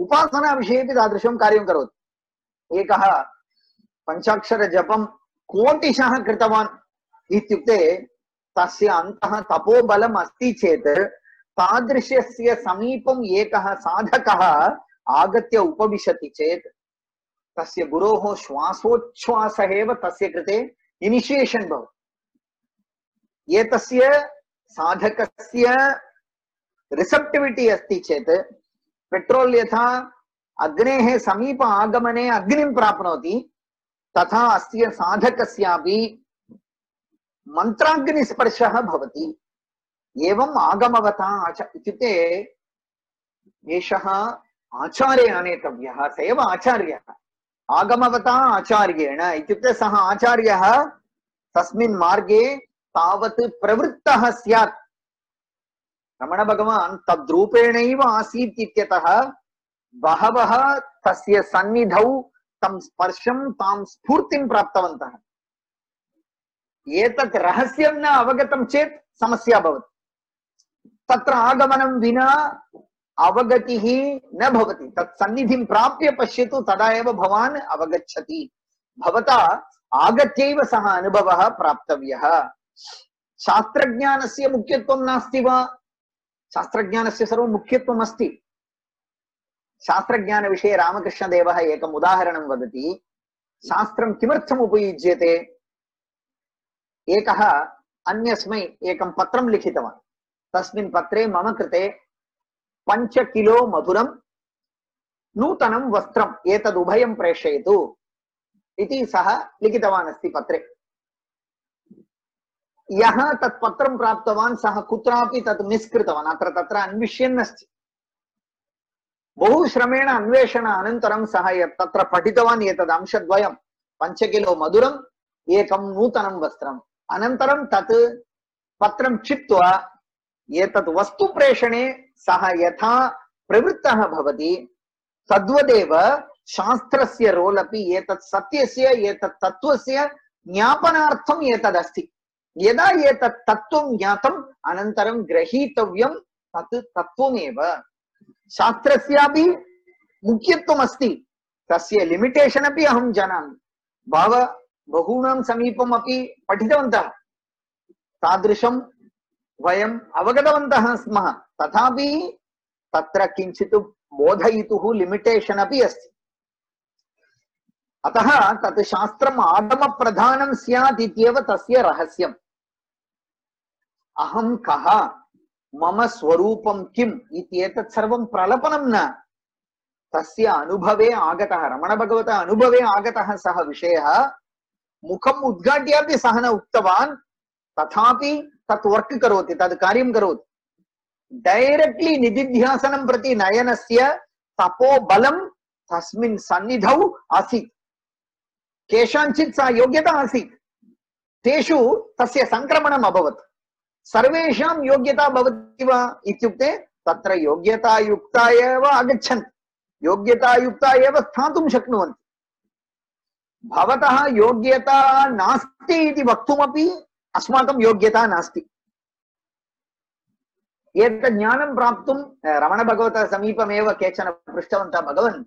उपासना विषयेपि तादृशं कार्यं करोति एकः पञ्चाक्षर जपं कोटिशः कृतवान् इत्युक्ते तस्य अन्तः तपोबलम् अस्ति चेत् तादृशस्य समीपम् एकः साधकः आगत्य उपविशति चेत् तस्य गुरोः श्वासोच्छ्वासः एव तस्य कृते इनिशियेशन् भवति एतस्य साधकस्य रिसेप्टिविटी अस्ति चेत् पेट्रोल् यथा अग्नेः समीप आगमने अग्निं प्राप्नोति तथा अस्य साधकस्यापि मन्त्राग्निस्पर्शः भवति एवम् आगमवता इत्युक्ते एषः आचार्य आनेतव्यः स एव आचार्यः आगमवता आचार्येण इत्युक्ते सः आचार्यः तस्मिन् मार्गे तावत् प्रवृत्तः स्यात् रमण भगवान् तद्रूपेणैव आसीत् इत्यतः बहवः तस्य सन्निधौ तं स्पर्शं तां स्फूर्तिं प्राप्तवन्तः एतत् रहस्यं न अवगतं चेत् समस्या भवति तत्र आगमनं विना अवगतिः न भवति तत् सन्निधिं प्राप्य पश्यतु तदा एव भवान् अवगच्छति भवता आगत्यैव सः अनुभवः प्राप्तव्यः शास्त्रज्ञानस्य मुख्यत्वं नास्ति वा शास्त्रज्ञानस्य सर्वं मुख्यत्वम् अस्ति शास्त्रज्ञानविषये रामकृष्णदेवः एकम् उदाहरणं वदति शास्त्रं किमर्थम् उपयुज्यते एकः अन्यस्मै एकं पत्रं लिखितवान् तस्मिन् पत्रे मम कृते 5 किलो मधुरं नूतनं वस्त्रम् एतद् उभयं प्रेषयतु इति सः लिखितवान् अस्ति पत्रे यः तत् पत्रं प्राप्तवान् सः कुत्रापि तत् मिस् कृतवान् अत्र तत्र अन्विष्यन् अस्ति बहु श्रमेण अन्वेषण अनन्तरं सः तत्र पठितवान् एतद् अंशद्वयं 5 किलो मधुरम् एकं नूतनं वस्त्रम् अनन्तरं तत् पत्रं चित्वा एतत् वस्तु प्रेषणे सः यथा प्रवृत्तः भवति तद्वदेव शास्त्रस्य रोल् अपि एतत् सत्यस्य एतत् तत्त्वस्य ज्ञापनार्थम् एतदस्ति यदा एतत् तत्त्वं ज्ञातम् अनन्तरं ग्रहीतव्यं तत् तत्त्वमेव शास्त्रस्यापि मुख्यत्वम् अस्ति तस्य लिमिटेशन् अपि अहं जानामि बहूनां समीपम् अपि पठितवन्तः तादृशं वयम् अवगतवन्तः स्मः तथापि तत्र किञ्चित् बोधयितुः लिमिटेशन् अपि अस्ति अतः तत् शास्त्रम् आगमप्रधानं स्यात् इत्येव तस्य रहस्यम् अहं कः मम स्वरूपं किम् इत्येतत् सर्वं प्रलपनं न तस्य अनुभवे आगतः रमणभगवतः अनुभवे आगतः सः विषयः मुखम् उद्घाट्यापि सः न उक्तवान् तथापि तत् वर्क् करोति तद् कार्यं करोति डैरेक्ट्लि निधिध्यासनं प्रति नयनस्य तपोबलं तस्मिन् सन्निधौ आसीत् केषाञ्चित् सा योग्यता आसीत् तेषु तस्य संक्रमणम् अभवत् सर्वेषां योग्यता भवति वा इत्युक्ते तत्र योग्यतायुक्ता एव आगच्छन्ति योग्यतायुक्ता एव स्थातुं शक्नुवन्ति भवतः योग्यता नास्ति इति वक्तुमपि अस्माकं योग्यता नास्ति एतत् ज्ञानं प्राप्तुं रमणभगवतः समीपमेव केचन पृष्टवन्तः, भगवन्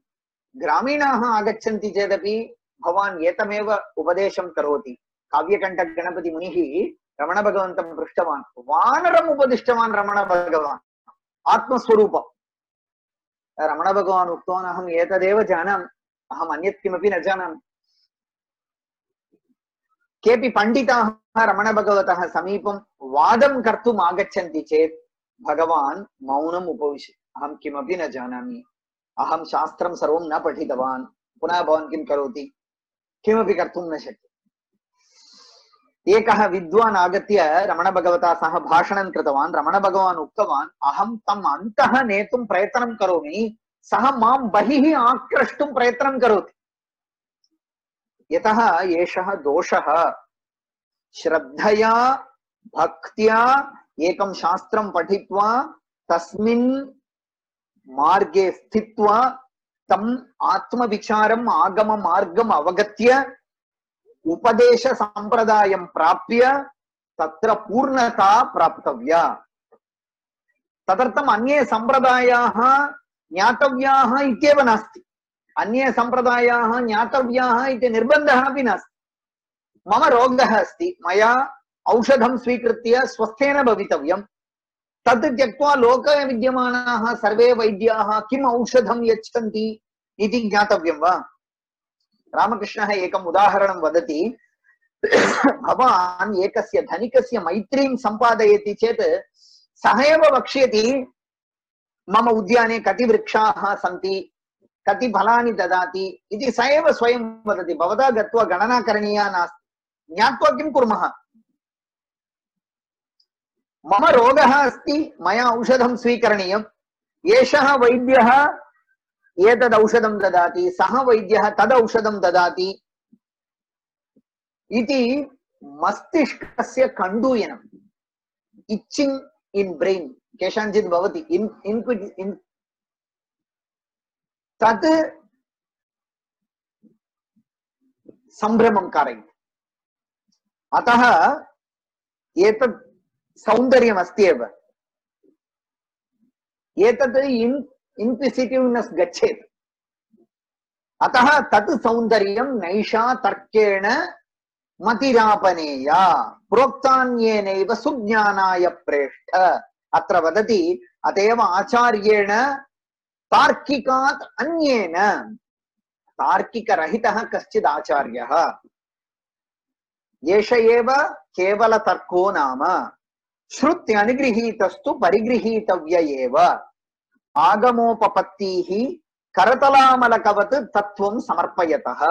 ग्रामीणाः आगच्छन्ति चेदपि भवान् एतमेव उपदेशं करोति। काव्यकण्ठगणपतिमुनिः रमणभगवन्तं पृष्टवान्, वानरम् उपदिष्टवान् रमणभगवान् आत्मस्वरूपम्। रमणभगवान् उक्तवान्, अहम् एतदेव जानामि, अहम् अन्यत् किमपि न जानामि। केऽपि पण्डिताः रमणभगवतः समीपं वादं कर्तुम् आगच्छन्ति चेत् भगवान् मौनम् उपविशति, अहं किमपि न जानामि, अहं शास्त्रं सर्वं न पठितवान्, पुनः भवान् किं करोति, किमपि कर्तुं न शक्यते। एकः विद्वान् आगत्य रमणभगवता सह भाषणं कृतवान्। रमणभगवान् उक्तवान्, अहं तम् अन्तः नेतुं प्रयत्नं करोमि, सः मां बहिः आक्रष्टुं प्रयत्नं करोति। यतः एषः दोषः, श्रद्धया भक्त्या एकं शास्त्रं पठित्वा तस्मिन् मार्गे स्थित्वा तम् आत्मविचारम् आगममार्गम् अवगत्य उपदेश संप्रदायं प्राप्य तत्र पूर्णता प्राप्तव्या। तदर्थम् अन्ये संप्रदायाः ज्ञातव्याः इत्येव नास्ति, अन्ये संप्रदायाः ज्ञातव्याः इति निर्बन्धः अपि नास्ति। मम रोगः अस्ति, मया औषधं स्वीकृत्य स्वस्थेन भवितव्यं, तद् त्यक्त्वा लोके विद्यमानाः सर्वे वैद्याः किम् औषधं यच्छन्ति इति ज्ञातव्यं वा? रामकृष्णः एकम् उदाहरणं वदति, भवान् एकस्य धनिकस्य मैत्रीं सम्पादयति चेत् सः एव वक्ष्यति, मम उद्याने कति वृक्षाः सन्ति, कति फलानि ददाति इति स एव स्वयं वदति। भवता गत्वा गणना करणीया नास्ति, ज्ञात्वा किं कुर्मः? मम रोगः अस्ति, मया औषधं स्वीकरणीयम्, एषः वैद्यः एतद् औषधं ददाति, सः वैद्यः तद् औषधं ददाति इति मस्तिष्कस्य कण्डूयनम्, इच्छिङ्ग् इन् ब्रेन् केषाञ्चित् भवति, तत् सम्भ्रमं कारयति। अतः एतत् सौन्दर्यमस्ति एव, एतत् इन्क्विसिटिव्नेस् गच्छेत्। अतः तत् सौन्दर्यं नैषा तर्केण मतिरापनेया प्रोक्तान्येनैव सुज्ञानाय प्रेष्ठ। अत्र वदति, अतएव आचार्येण तार्किकात् अन्येन, तार्किकरहितः कश्चित् आचार्यः, एष एव केवलतर्को नाम श्रुत्यनुगृहीतस्तु परिगृहीतव्य एव, आगमोपपत्तिः करतलामलकवत् तत्त्वं समर्पयतः।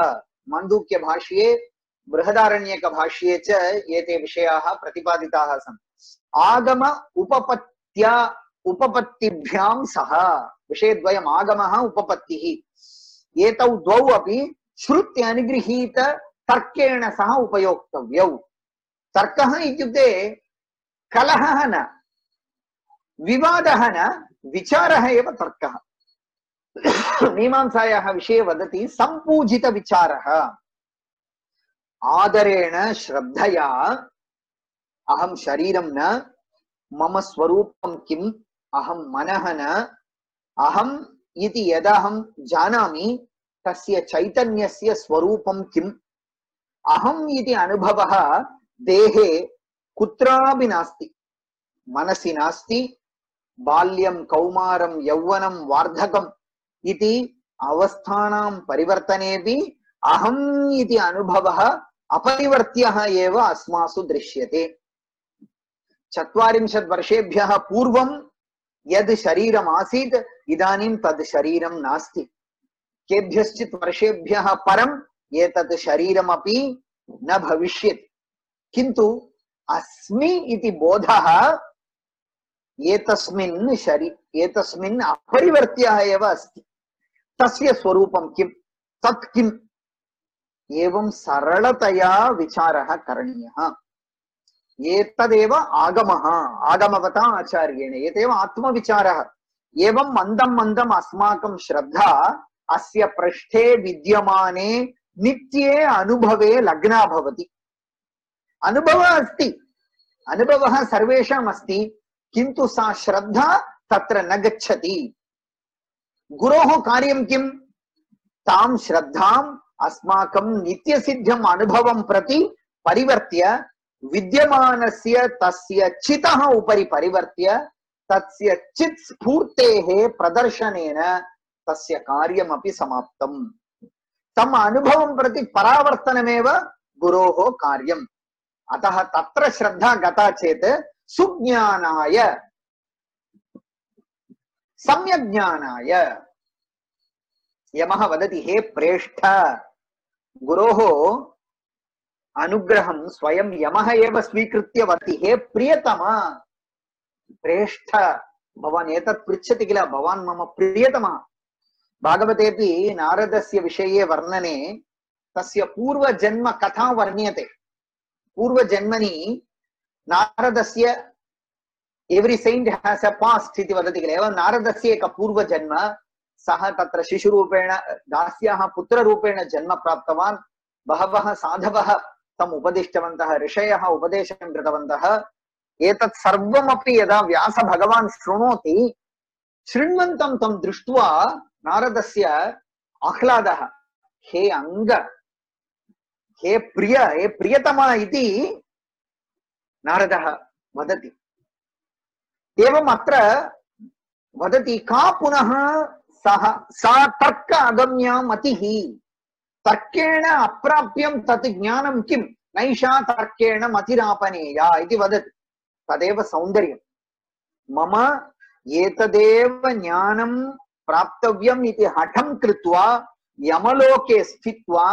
माण्डूक्य भाष्ये बृहदारण्यक भाष्ये च एते विषयाः प्रतिपादिताः सन्ति। आगम उपपत्तिभ्यां सह, विषयद्वयम् आगमः उपपत्तिः, एतौ द्वौ अपि श्रुत्य अनुगृहीत तर्केण सह उपयोक्तव्यौ। तर्कः इत्युक्ते कलहः न, विवादः न, विचारः एव तर्कः। मीमांसायाः विषये वदति, सम्पूजित विचारः, आदरेण श्रद्धया, अहं शरीरं न, मम स्वरूपं किम्, अहं मनः न, अहम् इति यदहं जानामि तस्य चैतन्यस्य स्वरूपं किम्, अहम् इति अनुभवः देहे कुत्रापि नास्ति, मनसि नास्ति, बाल्यं कौमारं यौवनं वार्धकम् इति अवस्थानां परिवर्तनेपि अहम् इति अनुभवः अपरिवर्त्यः एव अस्मासु दृश्यते। 40 वर्षेभ्यः पूर्वं यद् शरीरम् आसीत्, इदानीं तद् शरीरं नास्ति। केभ्यश्चित् वर्षेभ्यः परम् एतत् शरीरमपि न भविष्यति, किन्तु अस्मि इति बोधः एतस्मिन् अपरिवर्त्यः एव अस्ति। तस्य स्वरूपं किम्, तत् किम्, एवं सरलतया विचारः करणीयः। एतदेव आगमः, आगमवता आचार्येण, एतदेव आत्मविचारः। एवं मन्दं मन्दम् अस्माकं श्रद्धा अस्य पृष्ठे विद्यमाने नित्ये अनुभवे लग्ना भवति। अनुभवः अस्ति, अनुभवः सर्वेषाम् अस्ति, किन्तु सा श्रद्धा तत्र न गच्छति। गुरोः कार्यं किं? तां श्रद्धाम् अस्माकं नित्यसिद्धम् अनुभवं प्रति परिवर्त्य विद्यमानस्य तस्य चितः उपरि परिवर्त्य तस्य चित् स्फूर्तेः प्रदर्शनेन तस्य कार्यमपि समाप्तम्। तम अनुभवं प्रति परावर्तनमेव गुरोः कार्यम्। अतः तत्र श्रद्धा गता चेत् सुज्ञानाय सम्यग्ज्ञानाय यमः वदति, हे प्रेष्ठ, गुरोः अनुग्रहं स्वयं यमः एव स्वीकृत्य वदति, हे प्रियतम प्रेष्ठ, भवान् एतत् पृच्छति किल, भवान् मम प्रियतमः। भागवतेऽपि नारदस्य विषये वर्णने तस्य पूर्वजन्म कथा वर्ण्यते। पूर्वजन्मनि नारदस्य every saint has a past इति वदति किल, एवं नारदस्य एक पूर्वजन्म, सः तत्र शिशुरूपेण दास्याः पुत्ररूपेण जन्म प्राप्तवान्। बहवः साधवः तम् उपदिष्टवन्तः, ऋषयः उपदेशं कृतवन्तः। एतत् सर्वमपि यदा व्यास भगवान् शृणोति, शृण्वन्तं तं दृष्ट्वा नारदस्य आह्लादः, हे अंग, हे प्रिय, हे प्रियतमा इति नारदः वदति। एवम् अत्र वदति, का पुनः सा तर्क अगम्या मतिः, तर्केण अप्राप्यं तत् ज्ञानं किं, नैषा तर्केण मतिरापनेया इति वदति। तदेव सौन्दर्यं। मम एतदेव ज्ञानं प्राप्तव्यम् इति हठं कृत्वा यमलोके स्थित्वा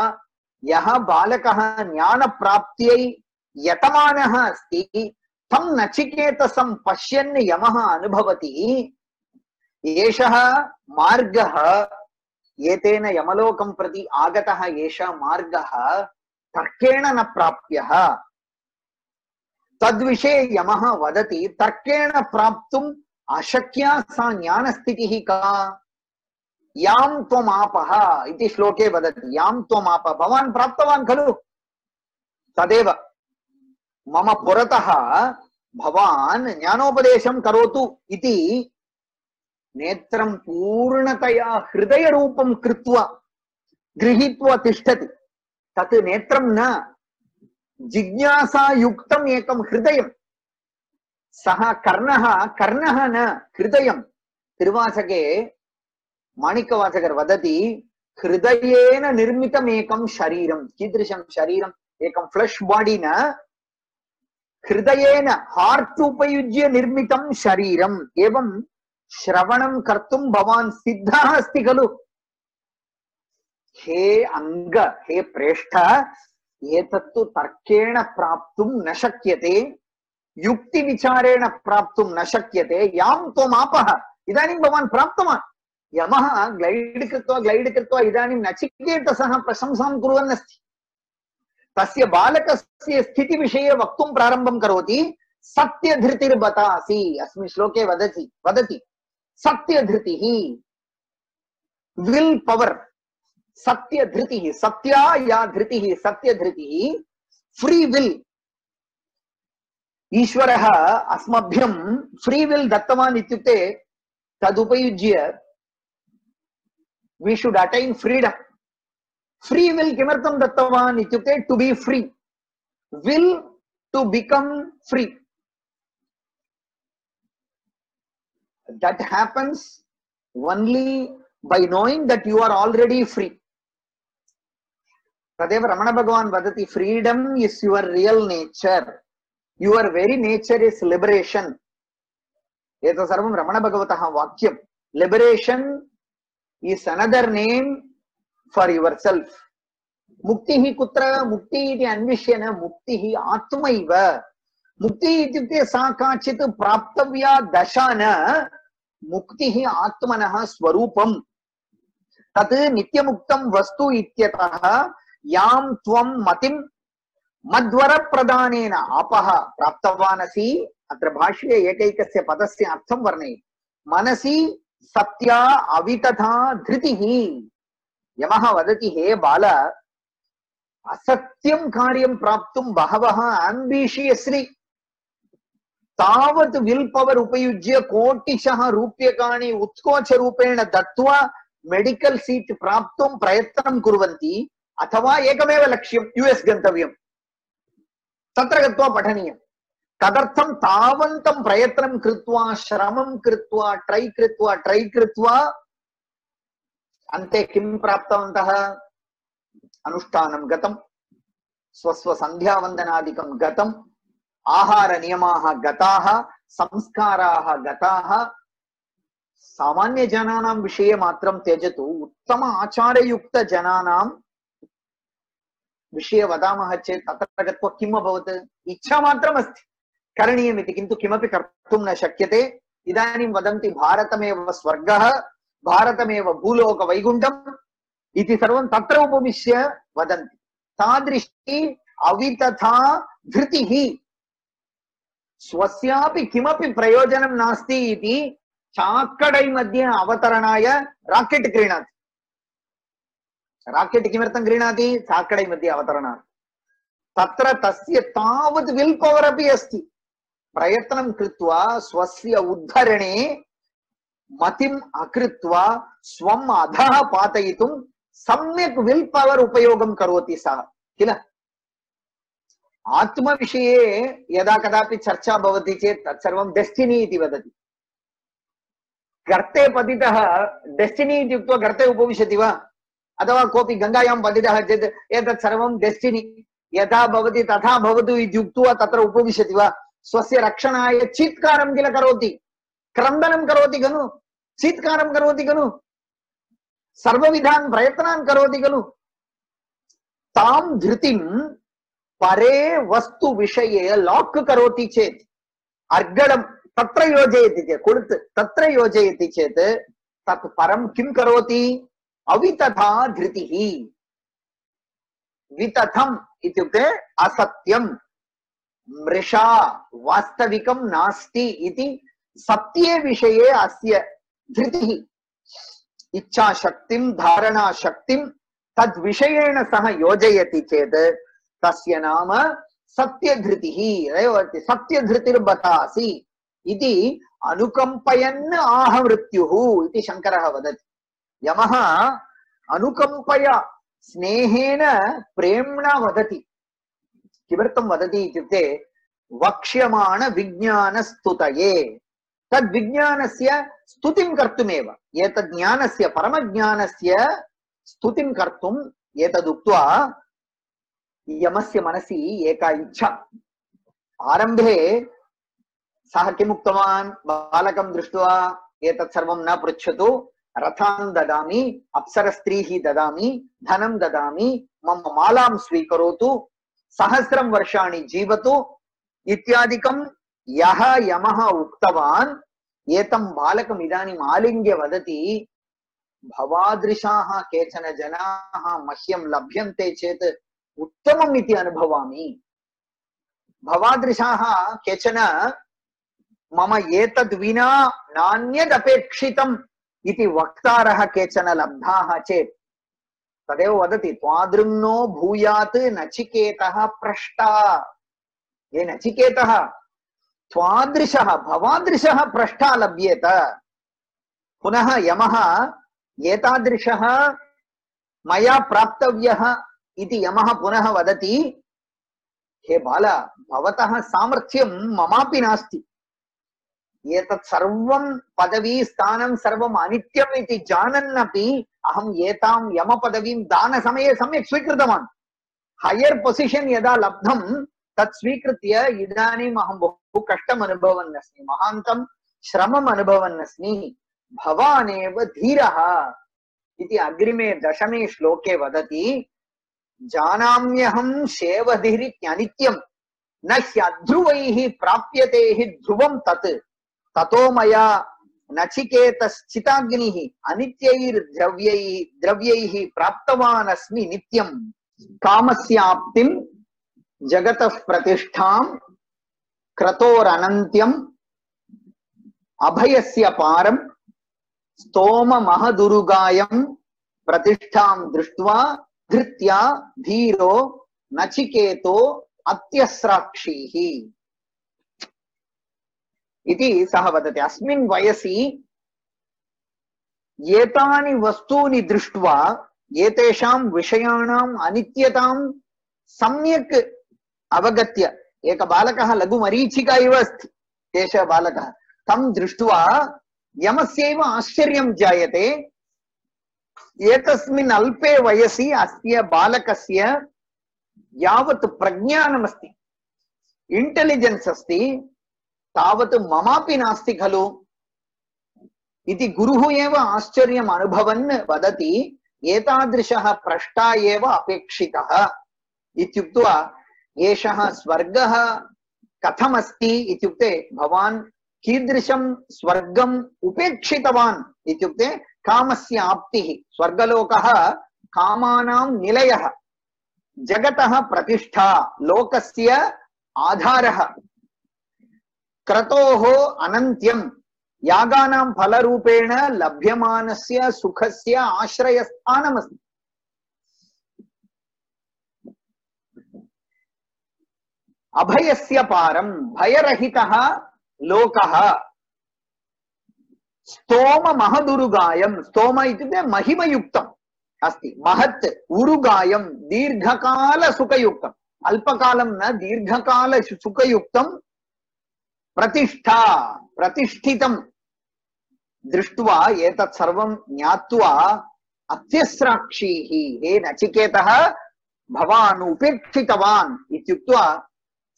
यः बालकः ज्ञानप्राप्त्यै यतमानः अस्ति, तं नचिकेतसं पश्यन् यमः अनुभवति, एषः मार्गः, एतेन यमलोकं प्रति आगतः एषः मार्गः तर्केण न प्राप्यः। तद्विषये यमः वदति, तर्केण प्राप्तुम् अशक्या सा ज्ञानस्थितिः का, यां त्वमापः इति श्लोके वदति। यां त्वमापः, भवान् प्राप्तवान् खलु, तदेव मम पुरतः भवान् ज्ञानोपदेशं करोतु इति नेत्रं पूर्णतया हृदयरूपं कृत्वा गृहीत्वा तिष्ठति। तत् नेत्रं न, जिज्ञासा युक्तम् एकं हृदयं। सः कर्णः, कर्णः न हृदयं। तिरुवाचके माणिक्यवाचकर वदति, हृदयेन निर्मितम् एकं शरीरं। कीदृशं शरीरम्? एकं फ्लैश बॉडी न, हृदयेन हार्ट उपयुज्य निर्मितं शरीरम्। एवं श्रवणं कर्तुं भवान् सिद्धः अस्ति खलु। हे अंग, हे प्रेष्ठ, एतत्तु तर्केण प्राप्तुं न शक्यते, युक्ति विचारेण प्राप्तुं न शक्यते। यां त्वमापः, इदानीं भवान् प्राप्तवान्। यमः ग्लैड् कृत्वा इदानीं नचिकेतसः प्रशंसां कुर्वन् अस्ति। तस्य बालकस्य स्थितिविषये वक्तुं प्रारम्भं करोति। सत्यधृतिर्बतासि, अस्मिन् श्लोके वदति सत्यधृतिः, विल पवर्, सत्यधृतिः, सत्या या धृतिः, सत्यधृतिः, फ्री विल। ईश्वरः अस्मभ्यं फ्री विल दत्तवान् इत्युक्ते तदुपयुज्य we should attain freedom. Free will किमर्थं दत्तवान् इत्युक्ते to be free, will to become free. That happens only by knowing that you are already free. Tadev Ramana Bhagavan vadati, freedom is your real nature. Your very nature is liberation. Eto sarvam Ramana Bhagavataha vakyam. Liberation is another name for yourself. Muktihi kutra, mukti iti anvishyana, muktihi atmaiva. Mukti ityukte sa kachit praptavya dashana, muktihi atmanaha swarupam. Tat nityamuktam vastu ityataha yam tvam matim madvara pradanena apaha praptavanasi. Atra bhashye ekaikasya padasya artham varnayati. Manasi satya avitatha dhritihi. Yamaha vadati, he bala, asatyam karyam praptum bahavaha ambitiously तावत् will power उपयुज्य कोटिशः रूप्यकाणि उत्कोचरूपेण दत्त्वा medical seat प्राप्तुं प्रयत्नं कुर्वन्ति अथवा एकमेव लक्ष्यं यूएस गन्तव्यं तत्र गत्वा पठनीयं तदर्थं तावन्तं प्रयत्नं कृत्वा श्रमं कृत्वा ट्रै कृत्वा अन्ते किं प्राप्तवन्तः अनुष्ठानं गतं स्वस्व सन्ध्यावन्दनादिकं गतं आहार नियमाः गताः संस्काराः गताः सामान्य जनानां विषये मात्रं त्यजतु उत्तम आचारयुक्त जनानां विषये वदामः चेत् तत्र गत्वा किम् अभवत् इच्छा मात्रम् अस्ति करणीयमिति किन्तु किमपि कर्तुं न शक्यते इदानीं वदन्ति भारतमेव स्वर्गः भारतमेव भूलोक वैकुण्ठम् इति सर्वं तत्र उपविश्य वदन्ति तादृशी अवितथा धृतिः स्वस्यापि किमपि प्रयोजनं नास्ति इति चाक्कडै मध्ये अवतरणाय राकेट् क्रीणाति राकेट् किमर्थं क्रीणाति चाक्कडै मध्ये अवतरणार्थं तत्र तस्य तावत् विल् पवर् अपि अस्ति प्रयत्नं कृत्वा स्वस्य उद्धरणे मतिम् अकृत्वा स्वम् अधः पातयितुं सम्यक् विल् पवर् उपयोगं करोति सः किल आत्मविषये यदा कदापि चर्चा भवति चेत् तत्सर्वं डेस्टिनी इति वदति गर्ते पतितः डेस्टिनी इत्युक्त्वा गर्ते उपविशति वा अथवा कोऽपि गङ्गायां पतितः चेत् एतत् सर्वं डेस्टिनी यथा भवति तथा भवतु इति उक्त्वा तत्र उपविशति वा स्वस्य रक्षणाय चीत्कारं किल करोति क्रन्दनं करोति खलु चीत्कारं करोति खलु सर्वविधान् प्रयत्नान् करोति खलु तां धृतिं परे वस्तु विषये लाक् करोति चेत् अर्गडं तत्र योजयति चेत् कुळुत् तत्र योजयति चेत् तत् परं किं करोति अवितथा धृतिः वितथम् इत्युक्ते असत्यं मृषा वास्तविकं नास्ति इति सत्ये विषये अस्य धृतिः इच्छाशक्तिं धारणाशक्तिं तद्विषयेण सह योजयति चेत् तस्य नाम सत्यधृतिः सत्यधृतिर्बतासि इति अनुकम्पयन् आह मृत्युः इति शङ्करः वदति यमः अनुकम्पया स्नेहेन प्रेम्णा वदति किमर्थं वदति इत्युक्ते वक्ष्यमाण विज्ञानस्तुतये तद्विज्ञानस्य स्तुतिं कर्तुमेव एतद् ज्ञानस्य परमज्ञानस्य स्तुतिं कर्तुम् एतदुक्त्वा यमस्य मनसि एका इच्छा आरम्भे सः किमुक्तवान् बालकं दृष्ट्वा एतत् सर्वं न पृच्छतु रथान् ददामि अप्सरस्त्रीः ददामि धनं ददामि मम मालां स्वीकरोतु सहस्रं वर्षाणि जीवतु इत्यादिकं यः यमः उक्तवान् एतं बालकम् इदानीम् आलिङ्ग्य वदति भवादृशाः केचन जनाः मह्यं लभ्यन्ते चेत् उत्तमम् इति अनुभवामि भवादृशाः केचन मम एतद् विना नान्यदपेक्षितम् इति वक्तारः केचन लब्धाः चेत् तदेव वदति त्वादृङ्नो भूयात् नचिकेतः पृष्टा ये नचिकेतः त्वादृशः भवादृशः पृष्टा लभ्येत पुनः यमः एतादृशः मया प्राप्तव्यः इति यमः पुनः वदति हे बाल भवतः सामर्थ्यं ममापि नास्ति एतत् सर्वं पदवी स्थानं सर्वम् अनित्यम् इति जानन्नपि अहम् एतां यमपदवीं दानसमये सम्यक् स्वीकृतवान् हायर् पोसिशन् यदा लब्धं तत् स्वीकृत्य इदानीम् अहं बहु कष्टम् अनुभवन् अस्मि महान्तं श्रमम् अनुभवन् अस्मि भवानेव धीरः इति अग्रिमे दशमे श्लोके वदति जानाम्यहं शेवधिरित्यनित्यं न ह्यध्रुवैः प्राप्यते हि ध्रुवं तत् ततो मया नचिकेतश्चिताग्निः अनित्यैर्द्रव्यैः प्राप्तवान् अस्मि नित्यं कामस्याप्तिं जगतः प्रतिष्ठां क्रतोरनन्त्यम् अभयस्य पारं स्तोम महदुरुगायं प्रतिष्ठां दृष्ट्वा धृत्या धीरो नचिकेतो अत्यस्राक्षीः इति सः वदति। अस्मिन् वयसि एतानि वस्तूनि दृष्ट्वा एतेषां विषयाणाम् अनित्यतां सम्यक् अवगत्य, एक बालकः लघुमरीचिका इव अस्ति केशवबालकः, तं दृष्ट्वा यमस्यैव आश्चर्यं जायते। एतस्मिन् अल्पे वयसि अस्य बालकस्य यावत् प्रज्ञानमस्ति, इंटेलिजेंस अस्ति, तावत् ममापि नास्ति खलु इति गुरुः एव आश्चर्यम् अनुभवन् वदति, एतादृशः प्रष्टा एव अपेक्षितः इत्युक्त्वा एषः स्वर्गः कथमस्ति इत्युक्ते भवान् कीदृशं स्वर्गम् उपेक्षितवान् इत्युक्ते कामस्य आप्तिः। स्वर्गलोकः कामानां निलयः, जगतः प्रतिष्ठा, लोकस्य आधारः, क्रतोः अनन्त्यं, यागानां फलरूपेण लभ्यमानस्य सुखस्य आश्रयस्थानमस्ति। अभयस्य पारं, भयरहितः लोकः, स्तोम महदुरुगायं, स्तोम इत्युक्ते महिमयुक्तम् अस्ति, महत् उरुगायं दीर्घकाल सुखयुक्तम्, अल्पकालं न दीर्घकाल सुखयुक्तं, प्रतिष्ठा प्रतिष्ठितं दृष्ट्वा एतत् सर्वं ज्ञात्वा अत्यस्राक्षीः, हे नचिकेतः भवान् उपेक्षितवान् इत्युक्त्वा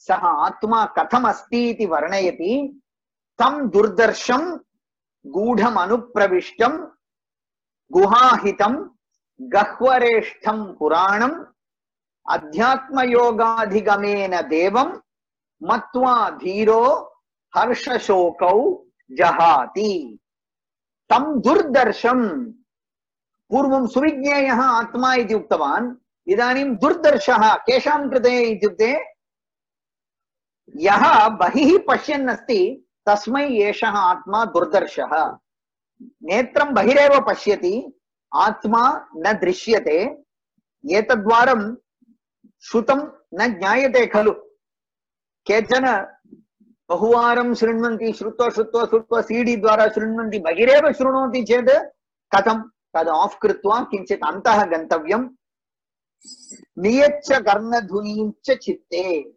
सः आत्मा कथमस्ति इति वर्णयति। तं दुर्दर्शं गूढम् अनुप्रविष्टं गुहाहितं गह्वरेष्ठं पुराणम् अध्यात्मयोगाधिगमेन देवं मत्वा धीरो हर्षशोकौ जहाति। तं दुर्दर्शं, पूर्वं सुविज्ञेयः आत्मा इति उक्तवान्, इदानीं दुर्दर्शः केषां कृते इत्युक्ते यः बहिः पश्यन् अस्ति तस्मै एषः आत्मा दुर्दर्शः। नेत्रं बहिरेव पश्यति, आत्मा न दृश्यते, एतद्वारं श्रुतं न ज्ञायते खलु। केचन बहुवारं शृण्वन्ति, श्रुत्वा श्रुत्वा श्रुत्वा सीडी द्वारा शृण्वन्ति, बहिरेव शृणोति चेत् कथं, तद् आफ् कृत्वा किञ्चित् अन्तः गन्तव्यं। नियच्च कर्णधुनीं च चित्ते,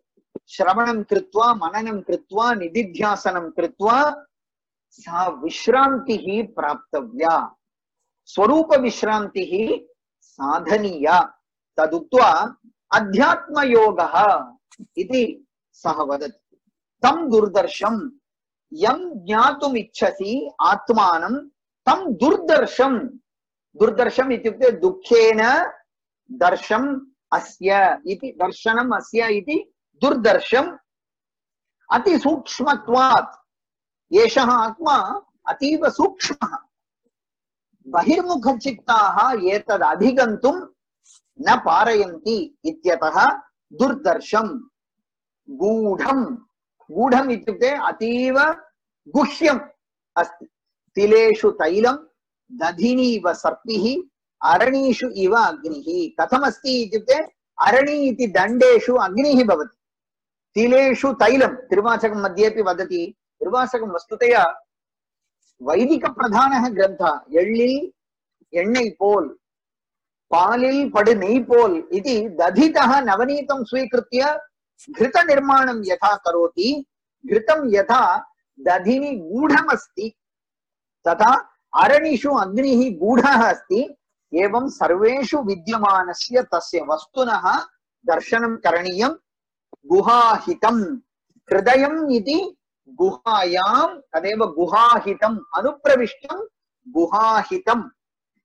श्रवणं कृत्वा मननं कृत्वा निदिध्यासनं कृत्वा सा विश्रान्तिः प्राप्तव्या, स्वरूप विश्रान्तिः साधनीया। तदुक्त्वा अध्यात्मयोगः इति सः वदति। तं दुर्दर्शं यं ज्ञातुम् इच्छसि आत्मानं तं दुर्दर्शं, दुर्दर्शम् इत्युक्ते दुःखेन दर्शम् अस्य इति, दर्शनम् अस्य इति दुर्दर्शम्। अतिसूक्ष्मत्वात्, एषः आत्मा अतीव सूक्ष्मः, बहिर्मुखचित्ताः एतद् अधिगन्तुं न पारयन्ति इत्यतः दुर्दर्शं। गूढं, गूढम् इत्युक्ते अतीव गुह्यम् अस्ति। तिलेषु तैलं दधिनीव सर्पिः अरणीषु इव अग्निः। कथमस्ति इत्युक्ते अरणी इति दण्डेषु अग्निः भवति, तिलेषु तैलं तिरुवाचकं मध्येपि वदति। तिरुवाचकं वस्तुतया वैदिकप्रधानः ग्रन्थः। एळ्ळिल् एण्णै पोल् पालिल् पडु नेय् पोल् इति दधितः नवनीतं स्वीकृत्य घृतनिर्माणं यथा करोति, घृतं यथा दधिनि गूढमस्ति तथा अरणिषु अग्निः गूढः अस्ति। एवं सर्वेषु विद्यमानस्य तस्य वस्तुनः दर्शनं करणीयं। गुहाहितं, हृदयम् इति गुहायां, तदेव गुहाहितम्, अनुप्रविष्टं गुहाहितम्।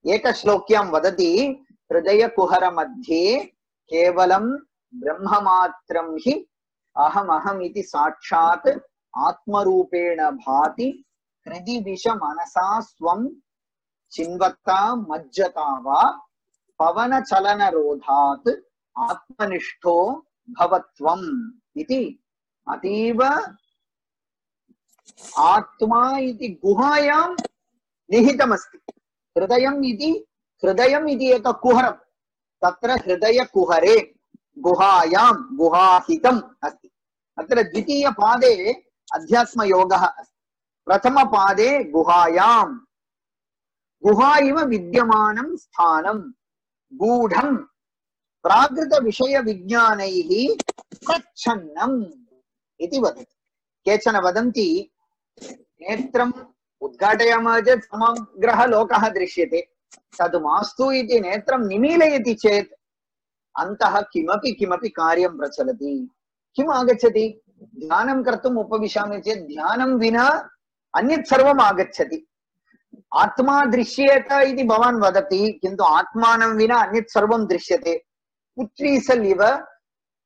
एकश्लोक्यां वदति, हृदयकुहरमध्ये केवलं ब्रह्ममात्रं हि अहमहम् इति साक्षात् आत्मरूपेण भाति, हृदि दिश मनसा स्वं चिन्वत्ता मज्जता वा पवनचलनरोधात् आत्मनिष्ठो भवत्वम् इति। अतीव आत्मा इति गुहायां निहितमस्ति। हृदयम् इति एक कुहरं, तत्र हृदयकुहरे गुहायां गुहाहितम् अस्ति। अत्र द्वितीयपादे अध्यात्मयोगः अस्ति। प्रथमपादे गुहायां गुहा इव विद्यमानं स्थानं गूढं प्राकृतविषयविज्ञानैः प्रच्छन्नम् इति वदति। केचन वदन्ति नेत्रम् उद्घाटयामः चेत् समग्रः लोकः दृश्यते, तद् मास्तु इति नेत्रं निमीलयति चेत् अन्तः किमपि किमपि कार्यं प्रचलति। किम् आगच्छति? ध्यानं कर्तुम् उपविशामि चेत् ध्यानं विना अन्यत् सर्वम् आगच्छति। आत्मा दृश्येत इति भवान् वदति, किन्तु आत्मानं विना अन्यत् सर्वं दृश्यते। पुत्रीसल् इव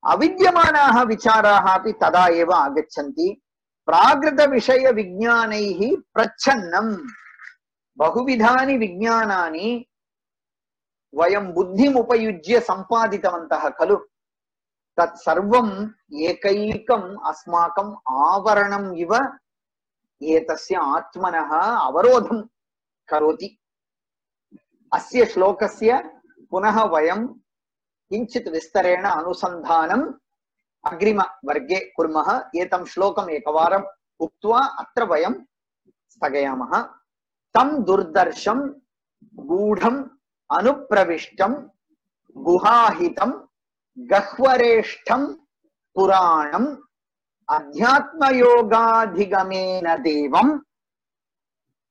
अविद्यमानाः विचाराः अपि तदा एव आगच्छन्ति। प्राकृतविषयविज्ञानैः प्रच्छन्नम्, बहुविधानि विज्ञानानि वयं बुद्धिम् उपयुज्य सम्पादितवन्तः खलु, तत्सर्वम् एकैकम् अस्माकम् आवरणम् इव एतस्य आत्मनः अवरोधं करोति। अस्य श्लोकस्य पुनः वयं किञ्चित् विस्तरेण अनुसन्धानम् अग्रिमवर्गे कुर्मः। एतं श्लोकम् एकवारम् उक्त्वा अत्र वयं स्थगयामः। तं दुर्दर्शं गूढम् अनुप्रविष्टं गुहाहितं गह्वरेष्ठं पुराणम् अध्यात्मयोगाधिगमेन देवं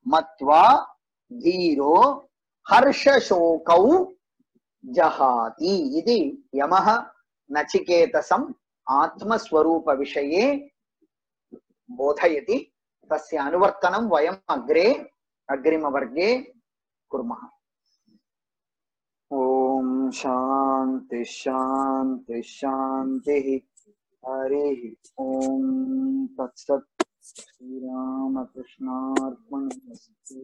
मत्वा धीरो हर्षशोकौ जहाति इति यमः नचिकेतसम् आत्मस्वरूपविषये बोधयति। तस्य अनुवर्तनं वयम् अग्रिमवर्गे कुर्मः। ओम शांति शांति शांति। हरिः ओम तत्सत्। श्रीरामकृष्णार्पणमस्तु।